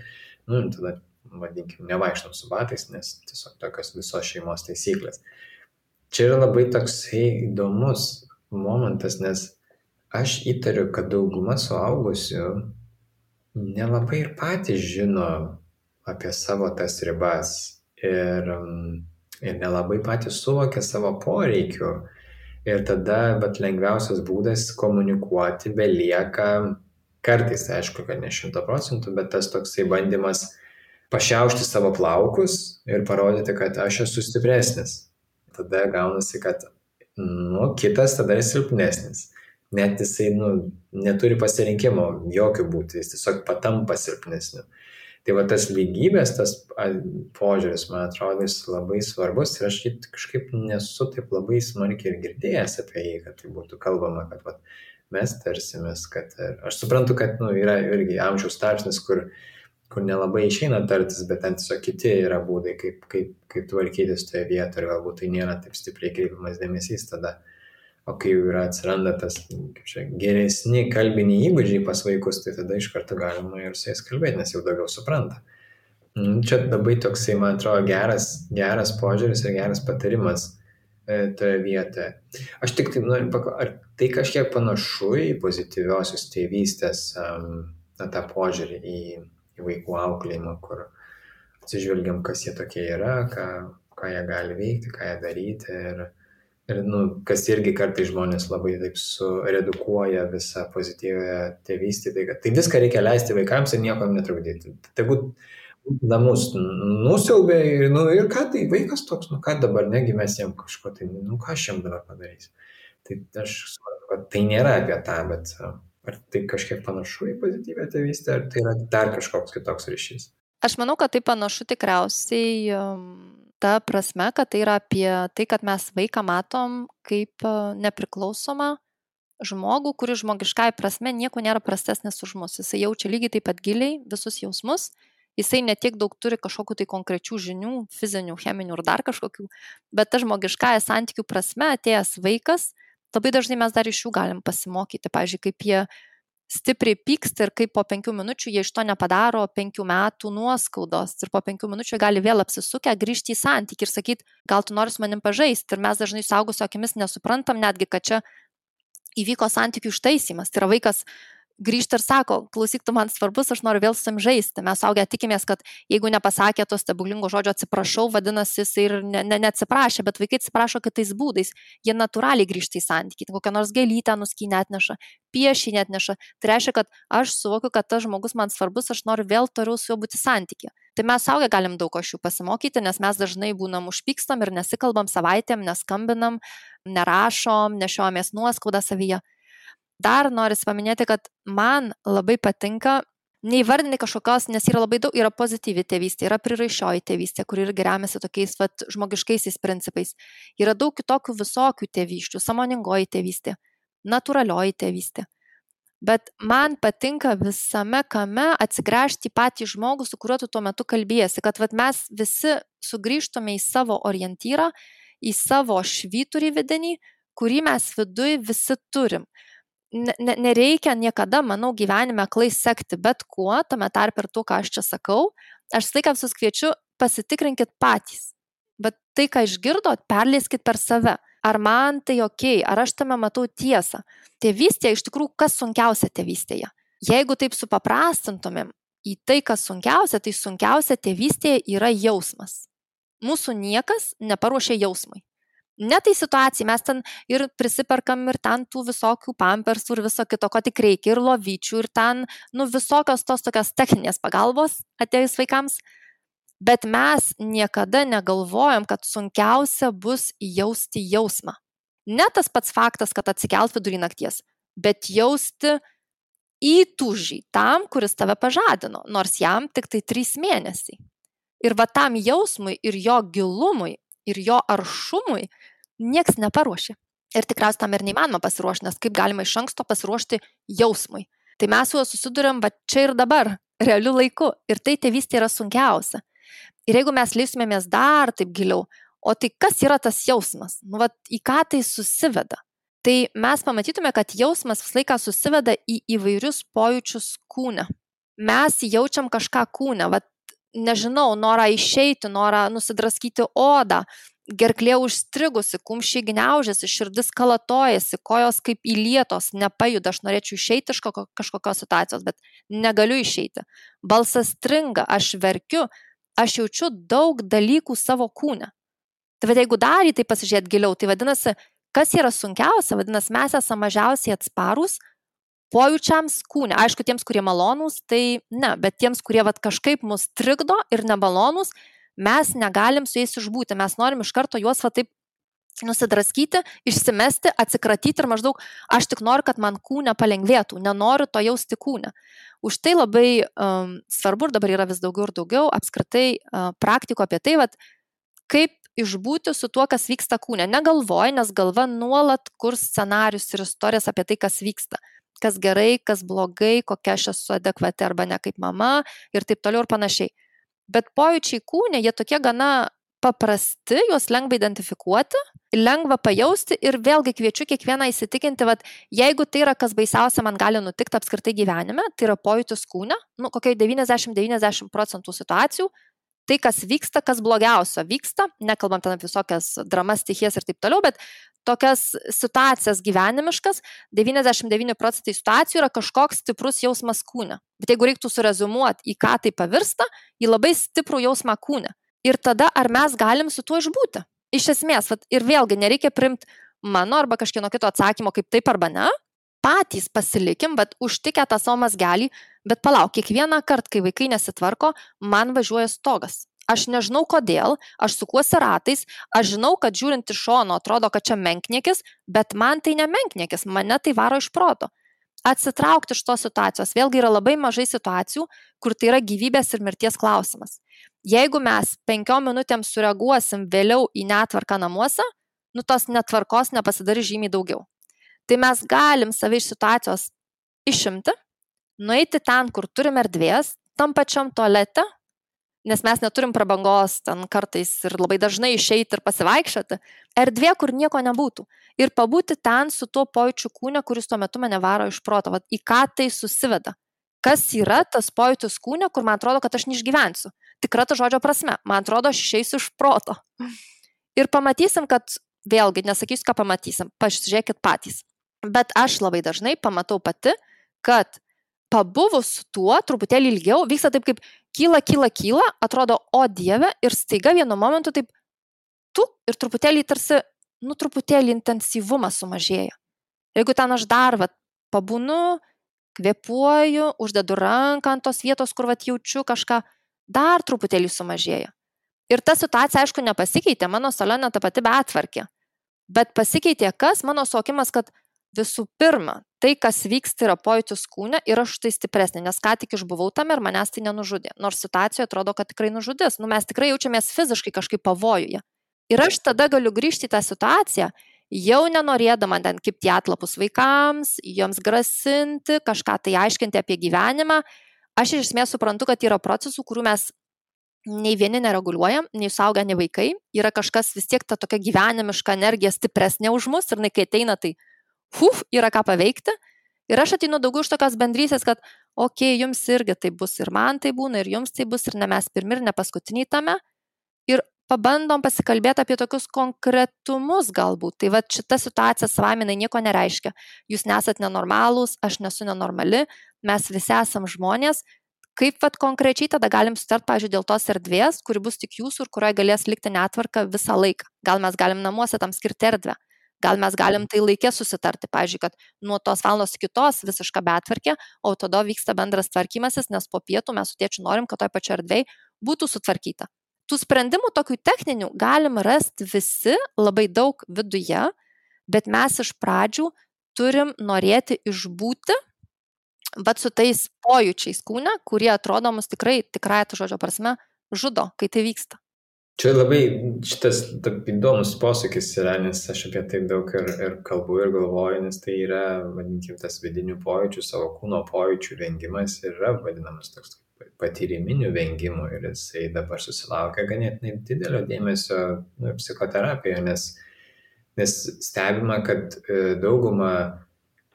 S4: tada, vadinkim, nevaikštom su batais, nes tiesiog tokios visos šeimos taisyklės. Čia yra labai toksai įdomus momentas, nes aš įtariu, kad dauguma suaugusių nelabai ir patys žino apie savo tas ribas ir nelabai patys suvokia savo poreikių. Ir tada lengviausias būdas komunikuoti belieka, kartais, aišku, kad ne 100%, bet tas toksai bandymas pašiaušti savo plaukus ir parodyti, kad aš esu stipresnis. Tada gaunasi, kad kitas tada yra silpnesnis. Net jisai neturi pasirinkimo jokių būti, jis tiesiog patampa silpnesniu. Tai tas lygybės, tas požiūris, man atrodo, jis labai svarbus ir aš kažkaip nesu taip labai smarkiai ir girdėjęs apie jį, kad tai būtų kalbama, kad mes tarsimės, kad aš suprantu, kad yra irgi amžiaus tarpsnis, kur nelabai išeina tartis, bet ten tiesiog kiti yra būdai, kaip tvarkytis toje vietoje ir galbūt tai nėra taip stipriai kreipiamas dėmesys tada. o kai jau yra atsiranda tas geresni kalbiniai įgūdžiai pas vaikus, tai tada iš karto galima ir su jais kalbėti, nes jau daugiau supranta. Čia labai toksai, man atrodo, geras požiūris ir geras patarimas toje vietoje. Aš tik taip noriu ar tai kažkiek panašu į pozityviosios tėvystės tą požiūrį į vaikų auklėjimą, kur atsižvelgiam, kas jie tokie yra, ką jie gali veikti, ką jie daryti ir kas irgi kartais žmonės labai taip suredukuoja visą pozityvę tėvystę, tai viską reikia leisti vaikams ir niekam netrukdyti. Tegu namus nusiaubė ir ką tai vaikas toks, ką dabar, negi mes jam kažko, tai ką aš jam dabar padarysiu. Tai aš suprantu, kad tai nėra apie tą, bet ar tai kažkiek panašu į pozityvę tėvystę, ar tai yra dar kažkoks kitoks ryšys?
S1: Aš manau, kad tai panašu tikriausiai ta prasme, kad tai yra apie tai, kad mes vaiką matom kaip nepriklausomą žmogų, kuris žmogiškai prasme nieko nėra prastesnis už mus. Jisai jaučia lygiai taip pat giliai visus jausmus. Jisai netiek daug turi kažkokių tai konkrečių žinių, fizinių, cheminių ir dar kažkokių, bet ta žmogiškąja santykių prasme atėjęs vaikas, labai dažnai mes dar iš jų galim pasimokyti. Pavyzdžiui, kaip jie stipriai pyksta ir kaip po 5 minučių jie iš to nepadaro 5 metų nuoskaudos ir po 5 minučių gali vėl apsisukę grįžti į santykį ir sakyti, gal tu nori su manim pažaisti. Ir mes dažnai suaugusio akimis nesuprantam netgi, kad čia įvyko santykių ištaisymas. Tai yra vaikas grįžta ir sako, klausyk, tu man svarbus, aš noriu vėl su jam žaisti. Mes suaugę tikimės, kad jeigu nepasakė to stebuklingo žodžio atsiprašau, vadinasi, jis ir neatsiprašė, bet vaikai atsiprašo kitais būdais. Jie natūraliai grįžta į santykį, kokią nors gėlytę nuskynę atneša, piešinį atneša. Tai reiškia, kad aš suvokiu, kad tas žmogus man svarbus, aš noriu vėl toliau su juo būti santykį. Tai mes suaugę galim daug iš jų pasimokyti, nes mes dažnai būnam užpykstam ir nesikalbam savaitėm, neskambinam, nerašom, nešiojamės nuoskaudą savyje. Dar norisi paminėti, kad man labai patinka neįvardinti kažkokios, nes yra labai daug, yra pozityvi tėvystė, yra priraišioji tėvystė, kuri irgi remiasi tokiais žmogiškaisiais principais. Yra daug kitokių visokių tėvyščių, sąmoningoji tėvystė, natūralioji tėvystė. Bet man patinka visame kame atsigręžti į patį žmogų, su kuriuo tu tuo metu kalbėsi, kad mes visi sugrįžtume į savo orientyrą, į savo švyturį vidinį, kurį mes viduj visi turim. Nereikia niekada, manau, gyvenime aklai sekti bet kuo, tame tarp ir tuo, ką aš čia sakau. Aš visą laiką visus kviečiu, pasitikrinkit patys. Bet tai, ką išgirdot, perleiskit per save. Ar man tai okei, ar aš tame matau tiesą. Tėvystėje iš tikrųjų, kas sunkiausia tėvystėje? Jeigu taip supaprastintumėm į tai, kas sunkiausia, tai sunkiausia tėvystėje yra jausmas. Mūsų niekas neparuošia jausmui. Ne tai situacijai, mes ten ir prisiperkam ir ten tų visokių pampersų ir viso kito, ko tik reikia, ir lovyčių, ir ten, visokios tos tokios techninės pagalbos atėjus vaikams. Bet mes niekada negalvojam, kad sunkiausia bus jausti jausmą. Ne tas pats faktas, kad atsikelt vidury nakties, bet jausti įtūžį tam, kuris tave pažadino, nors jam tik tai 3 mėnesiai. Ir tam jausmui ir jo gilumui ir jo aršumui nieks neparuošė. Ir tikriausiai tam ir neįmanoma pasiruošti, nes kaip galima iš anksto pasiruošti jausmui. Tai mes su juo susiduriam čia ir dabar, realiu laiku. Ir tai tėvystė yra sunkiausia. Ir jeigu mes leistumėmės dar taip giliau, o tai kas yra tas jausmas? Į ką tai susiveda? Tai mes pamatytume, kad jausmas visą laiką susiveda į įvairius pojūčius kūne. Mes jaučiam kažką kūne, nežinau, norą išeiti, norą nusidraskyti odą, gerklė užstrigusi, kumščiai gniaužiasi, širdis kalatojasi, kojos kaip įlietos, nepajuda, aš norėčiau išeiti iš kažkokios situacijos, bet negaliu išeiti. Balsas stringa, aš verkiu, aš jaučiu daug dalykų savo kūne. Tai jeigu dar į tai pasižiūrėti giliau, tai vadinasi, kas yra sunkiausia, vadinasi, mes esame mažiausiai atsparūs pojūčiams kūne. Aišku, tiems, kurie malonūs, tai ne, bet tiems, kurie kažkaip mus trikdo ir nemalonūs, mes negalim su jais išbūti. Mes norim iš karto juos taip nusidraskyti, išsimesti, atsikratyti ir maždaug aš tik noriu, kad man kūne palengvėtų, nenoriu to jausti kūne. Už tai labai svarbu ir dabar yra vis daugiau ir daugiau apskritai praktikų apie tai, kaip išbūti su tuo, kas vyksta kūne. Negalvoj, nes galva nuolat kurs scenarius ir istorijas apie tai, kas vyksta. Kas gerai, kas blogai, kokia aš esu adekvati arba ne kaip mama ir taip toliau ir panašiai. Bet pojūčiai kūne, jie tokie gana paprasti, juos lengva identifikuoti lengva pajausti ir vėlgi kviečiu kiekvieną įsitikinti, vat, jeigu tai yra kas baisiausia man gali nutikti apskritai gyvenime, tai yra pojūtis kūne, kokiai 90% situacijų, tai kas vyksta, kas blogiausio vyksta, nekalbam ten apie visokias dramas, stichijas ir taip toliau, bet tokias situacijas gyvenimiškas, 99% situacijų yra kažkoks stiprus jausmas kūne. Bet jeigu reiktų surezumuoti, į ką tai pavirsta, į labai stiprų jausmą kūne. Ir tada ar mes galim su tuo išbūti? Iš esmės, ir vėlgi nereikia primti mano arba kažkieno kito atsakymo kaip taip arba ne, patys pasilikim, bet užtikę tą savo mazgelį, bet palauk, kiekvieną kartą, kai vaikai nesitvarko, man važiuoja stogas. Aš nežinau kodėl, aš sukuosi ratais, aš žinau, kad žiūrint iš šono atrodo, kad čia menkniekis, bet man tai ne menkniekis, mane tai varo iš proto. Atsitraukti iš tos situacijos, vėlgi yra labai mažai situacijų, kur tai yra gyvybės ir mirties klausimas. Jeigu mes 5 minutėm sureaguosim vėliau į netvarką namuose, tos netvarkos nepasidarys žymiai daugiau. Tai mes galim save iš situacijos išimti, nueiti ten, kur turim erdvės, tam pačiam tualete, nes mes neturim prabangos ten kartais ir labai dažnai išeiti ir pasivaikščioti, erdvė, kur nieko nebūtų. Ir pabūti ten su tuo pojūčiu kūne, kuris tuo metu mane varo iš proto. Į ką tai susiveda? Kas yra tas pojūtis kūne, kur man atrodo, kad aš neišgyvensiu? Tikra to žodžio prasme. Man atrodo, aš išeisiu iš proto. Ir pamatysim, kad vėlgi, nesakysiu, ką pamatysim, pasižiūrėkit patys. Bet aš labai dažnai pamatau pati, kad pabuvus tuo truputėlį ilgiau, vyksta taip kaip kyla, atrodo, o Dieve, ir staiga vienu momentu taip ir truputėlį tarsi, truputėlį intensyvumas sumažėja. Jeigu ten aš dar pabūnu, kvėpuoju, uždedu ranką ant tos vietos, kur jaučiu kažką, dar truputėlį sumažėja. Ir ta situacija, aišku, nepasikeitė, mano salone ta pati betvarkė. Bet pasikeitė kas? Mano suvokimas, kad visų pirma, tai, kas vyksta, yra pojūtis kūne ir aš tai stipresnė, nes ką tik išbuvau tame ir manęs tai nenužudė. Nors situacijoje atrodo, kad tikrai nužudys. Mes tikrai jaučiamės fiziškai kažkaip pavojuje. Ir aš tada galiu grįžti į tą situaciją, jau nenorėdama ten kibti atlapus vaikams, joms grasinti, kažką tai aiškinti apie gyvenimą. Aš iš esmės suprantu, kad yra procesų, kurių mes nei vieni nereguliuojam, nei suaugę, nei vaikai. Yra kažkas vis tiek ta tokia gyvenimiška energija stipresnė už mus ir kai ateina, tai yra ką paveikti. Ir aš ateinu daugiau iš tokios bendrystės, kad jums irgi tai bus ir man tai būna, ir jums tai bus, ir ne mes pirmi, ir ne paskutiniai tame. Ir pabandom pasikalbėti apie tokius konkretumus galbūt. Tai šita situacija savaime nieko nereiškia. Jūs nesat nenormalūs, aš nesu nenormali, mes visi esam žmonės. Kaip konkrečiai tada galim sutart, pavyzdžiui, dėl tos erdvės, kuri bus tik jūsų ir kurioje galės likti netvarka visą laiką. Gal mes galim namuose tam skirti erdvę. Gal mes galim tai laikė susitarti, pavyzdžiui, kad nuo tos valandos iki tos visiška betvarkė, o tada vyksta bendras tvarkymasis, nes po pietų mes su tėčiu norim, kad toj pačioj erdvėj būtų sutvarkyta. Tų sprendimų tokių techninių galim rasti visi labai daug viduje, bet mes iš pradžių turim norėti išbūti su tais pojūčiais kūne, kurie atrodo mus tikrai to žodžio prasme žudo, kai tai vyksta.
S4: Čia labai šitas įdomus posakis yra, nes aš apie tai daug ir kalbu ir galvoju, nes tai yra, vadinkim, tas vidinių pojūčių, savo kūno pojūčių vengimas yra vadinamas toks patyriminių vengimų ir jisai dabar susilaukia ganėtinai didelio dėmesio psichoterapijoje, nes stebima, kad dauguma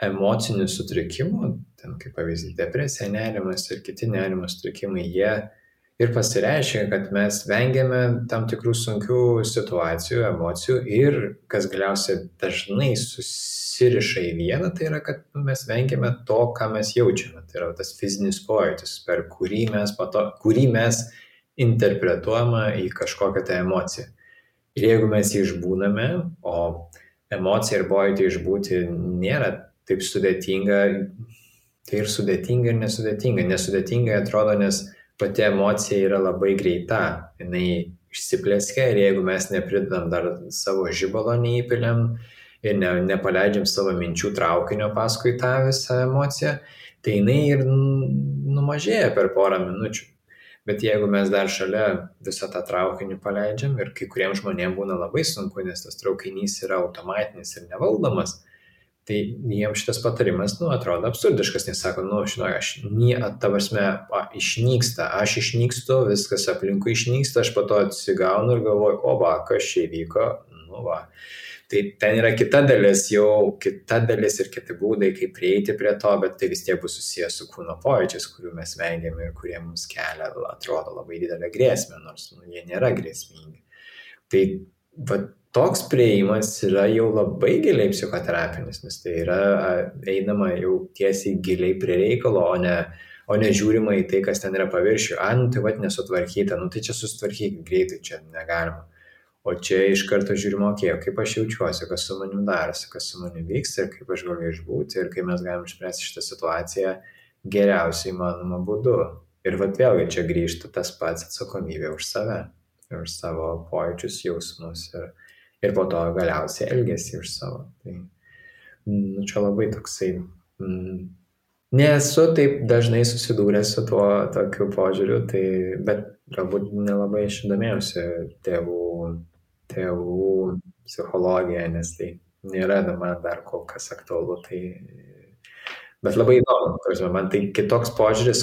S4: emocinių sutrikimų, ten kaip pavyzdys depresija, nerimas ir kiti nerimo sutrikimai, jie ir pasireiškia, kad mes vengiame tam tikrų sunkių situacijų, emocijų ir, kas galiausiai dažnai susiriša į vieną, tai yra, kad mes vengiame to, ką mes jaučiame. Tai yra tas fizinis pojūtis, per kurį mes interpretuojame į kažkokią tą emociją. Ir jeigu mes jį išbūname, o emocija ir pojūtį išbūti nėra taip sudėtinga, tai ir sudėtinga ir nesudėtinga. Nesudėtingai atrodo, nes pati emocija yra labai greita, jinai išsiplėskia ir jeigu mes nepridedam dar savo žibalo neįpiliam ir nepaleidžiam savo minčių traukinio paskui tą visą emociją, tai jinai ir numažėja per porą minučių. Bet jeigu mes dar šalia visą tą traukinį paleidžiam ir kai kuriems žmonėms būna labai sunku, nes tas traukinys yra automatinis ir nevaldomas, tai jiems šitas patarimas, atrodo absurdiškas, nes sako, išnyksta, aš išnykstu, viskas aplinkui išnyksta, aš po to atsigaunu ir galvoju, kas čia įvyko, nu va. Tai ten yra kita dalis ir kiti būdai, kaip prieiti prie to, bet tai vis tiek bus susijęs su kūno pojūčiais, kurių mes vengiame ir kurie mums kelia, atrodo, labai didelę grėsmę, nors jie nėra grėsmingi. Tai va, toks prieimas yra jau labai giliai psichoterapinis, nes tai yra einama jau tiesiai giliai prie reikalo, o ne žiūrima į tai, kas ten yra paviršių. Tai va, nesutvarkyta, tai čia susitvarkyti greitai, čia negalima. O čia iš karto žiūrima, kaip aš jaučiuosi, kas su manim darosi, kas su manim vyksta ir kaip aš galiu išbūti ir kaip mes galim išspręsti šitą situaciją geriausiai įmanoma būdu. Ir vat vėlgi čia grįžta tas pats atsakomybė už save, už savo pojūčius, jausmus ir po to galiausiai elgesį už savo. Tai čia labai toksai... Nesu taip dažnai susidūręs su tuo tokiu požiūriu, bet galbūt nelabai aš domėjausi tėvų psichologija, nes tai nėra man dar kol kas aktualu. Bet labai įdomu, man tai kitoks požiūris,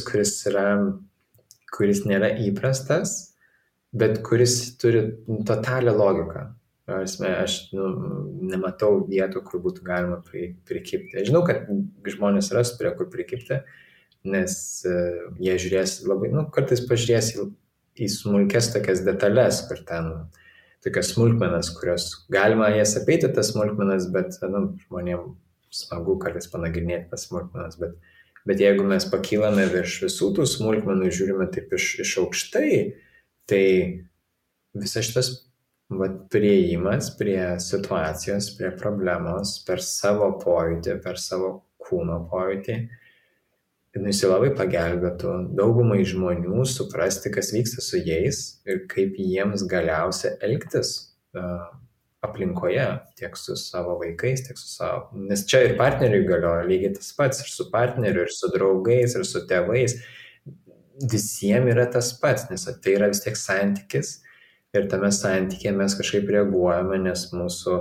S4: kuris nėra įprastas, bet kuris turi totalią logiką. Aš nematau vietų, kur būtų galima prikibti. Aš žinau, kad žmonės ras prie kur prikibti, nes jie žiūrės labai, kartais pažiūrės į smulkes tokias detalės, kur ten tokias smulkmenas, kurios galima jas apeiti tas smulkmenas, bet žmonėms smagu kartais panagrinėti tas smulkmenas, bet jeigu mes pakylame virš visų tų smulkmenų, žiūrime taip iš aukštai, tai visas šitas priėjimas prie situacijos, prie problemos, per savo pojūtį, per savo kūno pojūtį, jis labai pagelbėtų daugumai žmonių suprasti, kas vyksta su jais ir kaip jiems galiausia elgtis aplinkoje, tiek su savo vaikais, tiek su savo... Nes čia ir partneriui galioja lygiai tas pats, ir su partneriu, ir su draugais, ir su tėvais. Visiems yra tas pats, nes tai yra vis tiek santykis. Ir tame santykėje mes kažkaip reaguojame, nes mūsų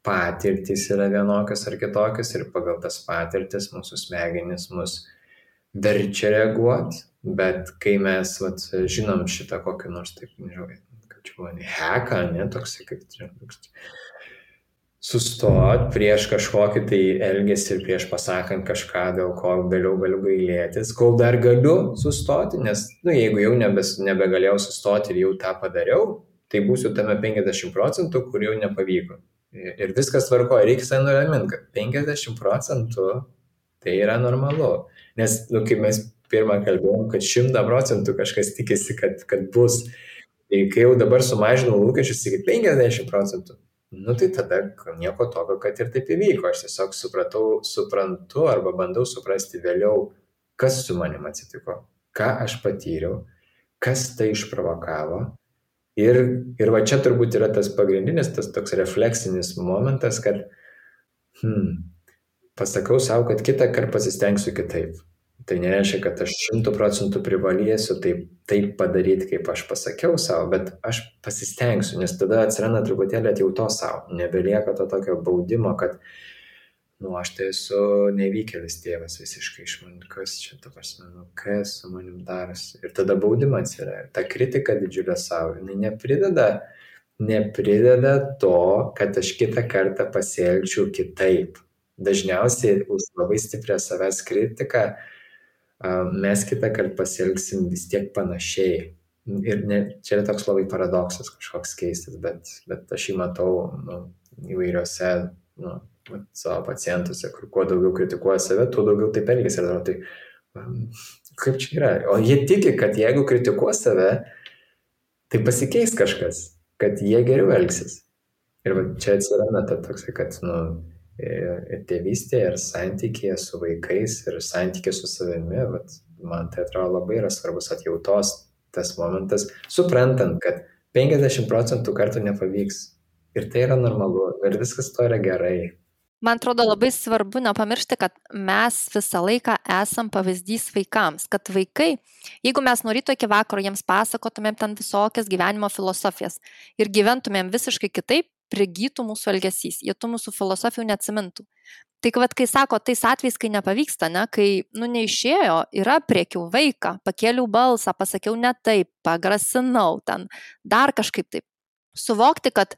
S4: patirtys yra vienokios ar kitokios ir pagal tas patirtis mūsų smegenys mus verčia reaguoti, bet kai mes žinom šitą kokį nors, taip, nežinau, kaip čia buvo, heką, toksai, kaip sustot prieš kažkokį tai elgesį ir prieš pasakant kažką, dėl ko vėliau galiu gailėtis, kol dar galiu sustoti, nes jeigu jau nebegalėjau sustoti ir jau tą padariau, tai būsiu tame 50%, kur jau nepavyko. Ir viskas tvarkoja, reikia nuraminti, kad 50% tai yra normalu. Nes, kaip mes pirmą kalbėjom, kad 100% kažkas tikisi, kad bus. Tai kai jau dabar sumažinau lūkesčius iki 50%, tai tada nieko tokio, kad ir taip įvyko. Aš tiesiog suprantu arba bandau suprasti vėliau, kas su manim atsitiko, ką aš patyriau, kas tai išprovokavo. Ir va čia turbūt yra tas pagrindinis, tas toks refleksinis momentas, kad pasakau savo, kad kitą kartą pasistengsiu kitaip. Tai nereiškia, kad aš 100% privalėsiu taip padaryti, kaip aš pasakiau savo, bet aš pasistengsiu, nes tada atsiranda truputėlį atjautos savo. Nebelieka to tokio baudimo, kad aš tai esu nevykėlis tėvas visiškai iš man, kas čia, kas su manim darosi. Ir tada baudimas yra. Ta kritika didžiulė savo, jinai neprideda to, kad aš kitą kartą pasielgčiau kitaip. Dažniausiai už labai stiprią savęs kritiką mes kitą kartą pasielgsim vis tiek panašiai. Ir čia yra toks labai paradoksas kažkoks keistas, bet aš jį matau įvairiose savo pacientuose, kur kuo daugiau kritikuoja save, tuo daugiau taip elgesi. Tai kaip čia yra? O jie tiki, kad jeigu kritikuos save, tai pasikeis kažkas, kad jie geriau elgsis. Ir čia atsiranda toksai, kad ir tėvystėje, ir santykėje su vaikais, ir santykė su savimi, man tai atrodo labai yra svarbus atjautos tas momentas, suprantant, kad 50% kartų nepavyks. Ir tai yra normalu, ir viskas to yra gerai.
S1: Man atrodo labai svarbu nepamiršti, kad mes visą laiką esam pavyzdys vaikams, kad vaikai, jeigu mes nuo ryto iki vakaro jiems pasakotumėm ten visokias gyvenimo filosofijas ir gyventumėm visiškai kitaip, prigytų mūsų elgesys, jie tų mūsų filosofijų neatsimintų. Tai kai sako, tais atvejais, kai nepavyksta, kai neišėjo, yra priekiau vaiką, pakėliau balsą, pasakiau ne taip, pagrasinau ten, dar kažkaip taip. Suvokti, kad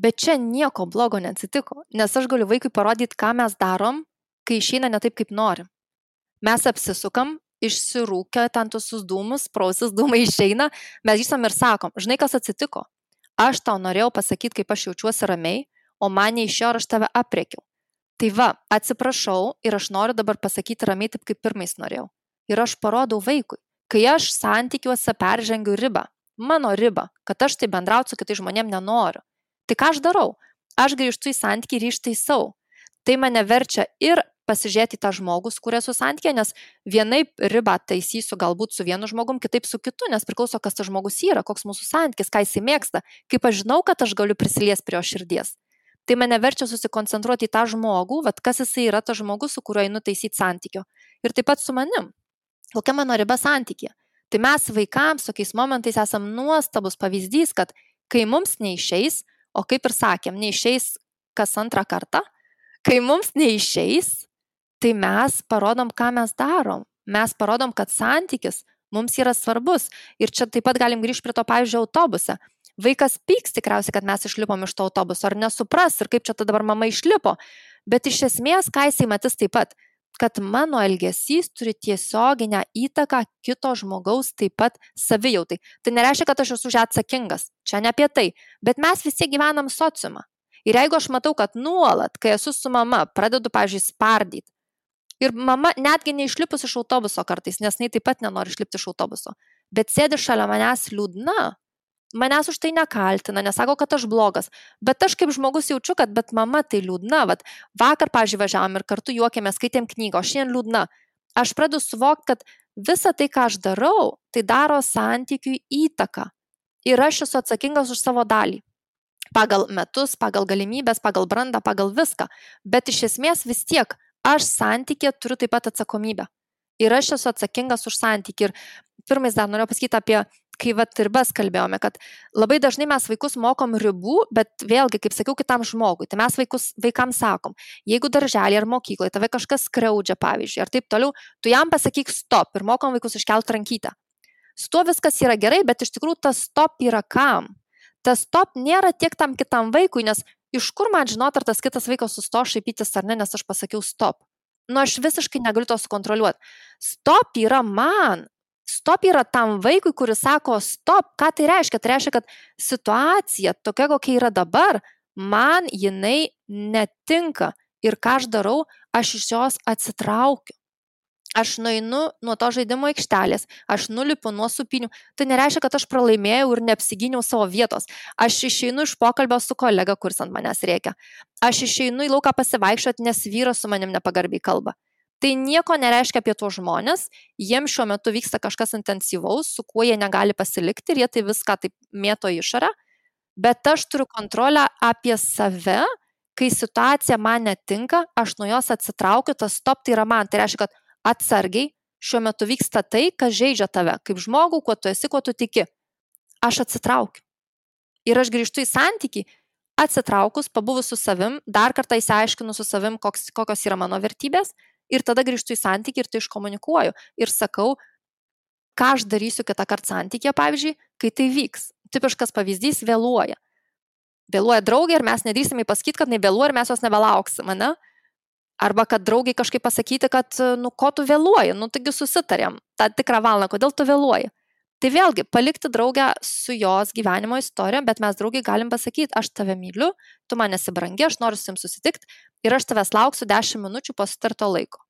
S1: Bet čia nieko blogo neatsitiko, nes aš galiu vaikui parodyti, ką mes darom, kai išeina ne taip, kaip norim. Mes apsisukam, išsirūkia ten tuos dūmus, prausis dūmai išeina, mes grįžtam ir sakom, žinai, kas atsitiko? Aš tau norėjau pasakyti, kaip aš jaučiuosi ramiai, o man neišėjo ir aš tave aprėkiau. Tai va, atsiprašau ir aš noriu dabar pasakyti ramiai taip, kaip pirmais norėjau. Ir aš parodau vaikui, kai aš santykiuose peržengiu ribą, mano ribą, kad aš tai bendrauti su kitais žmonėm nenoriu. Tai ką aš darau? Aš grįžtu į santykį ir ištaisau. Tai mane verčia ir pasižiūrėti tą žmogų, su kuria esu santykyje, nes vienaip ribą taisysiu galbūt su vienu žmogum, kitaip su kitu, nes priklauso, kas tas žmogus yra, koks mūsų santykis, ką jisai mėgsta, kaip aš žinau, kad aš galiu prisiliesti prie jo širdies. Tai mane verčia susikoncentruoti į tą žmogų, kas jisai yra tas žmogus, su kuriuo einu taisyti santykio. Ir taip pat su manim. Kokia mano riba santykė? Tai mes vaikams tokiais momentais esam nuostabus pavyzdys, kad kai mums neišeis, o kaip ir sakėm, neišeis kas antrą kartą, kai mums neišeis, tai mes parodom, ką mes darom. Mes parodom, kad santykis mums yra svarbus. Ir čia taip pat galim grįžti prie to, pavyzdžiui, autobuse. Vaikas pyks tikriausiai, kad mes išlipom iš to autobuso, ar nesupras, ir kaip čia tada dabar mama išlipo. Bet iš esmės, ką jisai matys taip pat, kad mano elgesys turi tiesioginę įtaką kito žmogaus taip pat savijautai. Tai nereiškia, kad aš esu už ją atsakingas. Čia ne apie tai. Bet mes visi gyvenam sociumą. Ir jeigu aš matau, kad nuolat, kai esu su mama, pradedu, pavyzdžiui, spardyti, ir mama netgi neišlipus iš autobuso kartais, nes jinai taip pat nenori išlipti iš autobuso, bet sėdi šalia manęs liūdna, manęs už tai nekaltina, nesako, kad aš blogas, bet aš kaip žmogus jaučiu, kad bet mama tai liūdna, vakar, pavyzdžiui, važiavom ir kartu juokėmės, skaitėm knygą, o šiandien liūdna. Aš pradedu suvokti, kad visa tai, ką aš darau, tai daro santykiui įtaką. Ir aš esu atsakingas už savo dalį. Pagal metus, pagal galimybės, pagal brandą, pagal viską. Bet iš esmės vis tiek aš santykė turiu taip pat atsakomybę. Ir aš esu atsakingas už santykį. Ir pirmais dar noriu pasakyti apie, kai ribas kalbėjome, kad labai dažnai mes vaikus mokom ribų, bet vėlgi, kaip sakiau, kitam žmogui. Tai mes vaikams sakom, jeigu darželį ar mokykloje tave kažkas skriaudžia, pavyzdžiui, ar taip toliau, tu jam pasakyk stop ir mokom vaikus iškelti rankytę. Su tuo viskas yra gerai, bet iš tikrųjų tas stop yra kam? Tas stop nėra tiek tam kitam vaikui, nes iš kur man žinot, ar tas kitas vaikas susto šaipytis ar ne, nes aš pasakiau stop. Aš visiškai negaliu to sukontroliuoti. Stop yra man. Stop yra tam vaikui, kuris sako stop. Ką tai reiškia? Tai reiškia, kad situacija tokia, kokia yra dabar, man jinai netinka. Ir ką aš darau, aš iš jos atsitraukiu. Aš nueinu nuo to žaidimo aikštelės, aš nulipu nuo supinių. Tai nereiškia, kad aš pralaimėjau ir neapsigyniau savo vietos. Aš išeinu iš pokalbio su kolega, kuris ant manęs rėkia. Aš išeinu į lauką pasivaikščioti, nes vyras su manim nepagarbiai kalba. Tai nieko nereiškia apie tuos žmonės, jiems šiuo metu vyksta kažkas intensyvaus, su kuo jie negali pasilikti ir jie tai viską taip mėto išorę. Bet aš turiu kontrolę apie save, kai situacija man netinka, aš nuo jos atsitraukiu, tas stop tai yra man. Tai reiškia, kad atsargiai, šiuo metu vyksta tai, kas žeidžia tave, kaip žmogų, kuo tu esi, kuo tu tiki. Aš atsitraukiu. Ir aš grįžtu į santykį, atsitraukus, pabuvus su savim, dar kartą įsiaiškinu su savim, kokios yra mano vertybės, ir tada grįžtu į santykį ir tai iškomunikuoju. Ir sakau, ką aš darysiu kitą kartą santykėje, pavyzdžiui, kai tai vyks. Tipiškas pavyzdys - vėluoja. Vėluoja draugė ir mes nedrįsime pasakyti, kad nevėluoja ir mes jos nebelauksim, ne? Arba kad draugiai kažkaip pasakyti, kad, ko tu vėluoji, taigi susitarėm tą tikrą valandą, kodėl tu vėluoji. Tai vėlgi, palikti draugę su jos gyvenimo istorija, bet mes draugiai galim pasakyti, aš tave myliu, tu man esi brangi, aš noriu su jums susitikti ir aš tavęs lauksiu 10 minučių po sutarto laiko.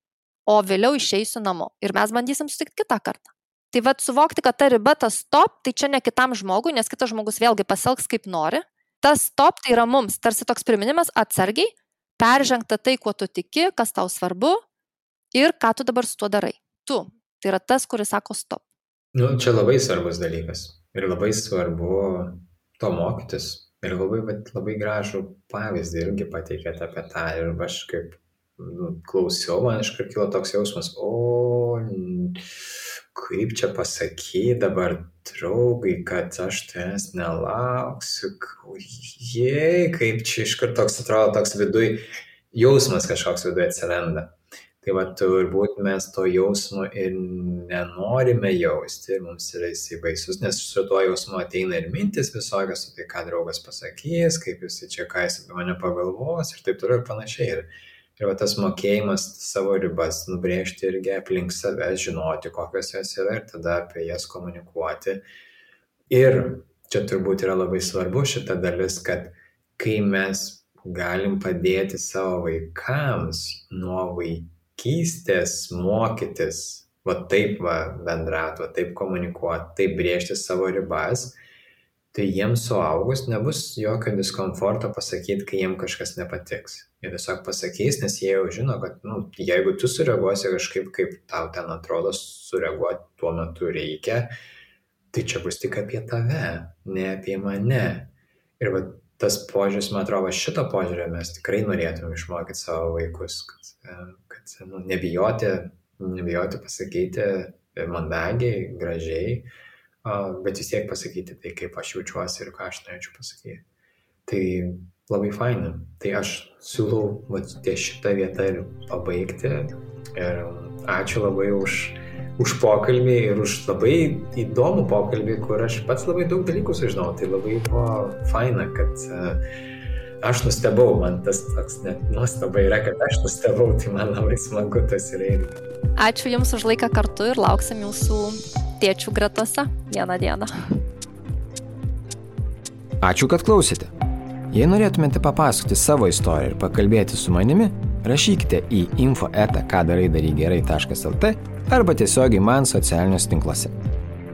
S1: O vėliau išeisiu namo ir mes bandysim susitikti kitą kartą. Tai suvokti, kad ta riba, tas stop, tai čia ne kitam žmogui, nes kitas žmogus vėlgi pasielgs kaip nori. Tas stop tai yra mums, tarsi toks priminimas atsargiai, peržengta tai, kuo tu tiki, kas tau svarbu ir ką tu dabar su tuo darai. Tu. Tai yra tas, kuris sako stop.
S4: Čia labai svarbus dalykas. Ir labai svarbu to mokytis. Ir labai gražų pavyzdį irgi pateikėte apie tą. Ir aš kaip klausiau, man iškart kilo toks jausmas, kaip čia pasakyti dabar draugai, kad aš tavęs nelauksiu, kaip čia iškart toks atrodo, toks viduj, jausmas kažkoks viduj atsiranda. Tai va, turbūt mes to jausmo ir nenorime jausti, mums yra jisai baisus, nes su tuo jausmu ateina ir mintis visokios, tai ką draugas pasakys, kaip jisai čia ką jis apie mane pagalvos ir taip toliau ir panašiai. Ir va, tas mokėjimas savo ribas nubrėžti irgi aplink save, žinoti, kokios jos yra ir tada apie jas komunikuoti. Ir čia turbūt yra labai svarbu šita dalis, kad kai mes galim padėti savo vaikams nuo vaikystės mokytis, va taip bendrauti, va taip komunikuoti, taip brėžti savo ribas, tai jiems suaugus nebus jokio diskomforto pasakyti, kai jiems kažkas nepatiks. Jie tiesiog pasakys, nes jie jau žino, kad jeigu tu sureaguosi kažkaip, kaip tau ten atrodo sureaguoti tuo metu reikia, tai čia bus tik apie tave, ne apie mane. Ir va, tas požiūris, man atrodo, šito požiūrio mes tikrai norėtume išmokyti savo vaikus, kad nebijoti pasakyti mandagiai, gražiai, bet vis tiek pasakyti tai, kaip aš jaučiuosi ir ką aš norėčiau pasakyti. Tai labai faina. Tai aš siūlau ties šitą vietą ir pabaigti. Ir ačiū labai už pokalbį ir už labai įdomų pokalbį, kur aš pats labai daug dalykų sužinau. Tai labai buvo faina, kad aš nustebau, man tas toks net nuostaba yra, kad aš nustebau, tai man labai smagu tas yra irgi.
S1: Ačiū Jums už laiką kartu ir lauksim Jūsų tėčių gretose vieną dieną.
S2: Ačiū, kad klausėte. Jei norėtumėte papasakoti savo istoriją ir pakalbėti su manimi, rašykite į info@kadarai-daryk-gerai.lt arba tiesiogiai man socialiniuose tinkluose.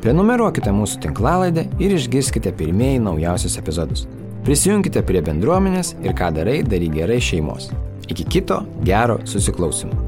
S2: Prenumeruokite mūsų tinklalaidę ir išgirskite pirmieji naujausius epizodus. Prisijunkite prie bendruomenės ir Ką darai, daryk gerai šeimos. Iki kito gero susiklausymo.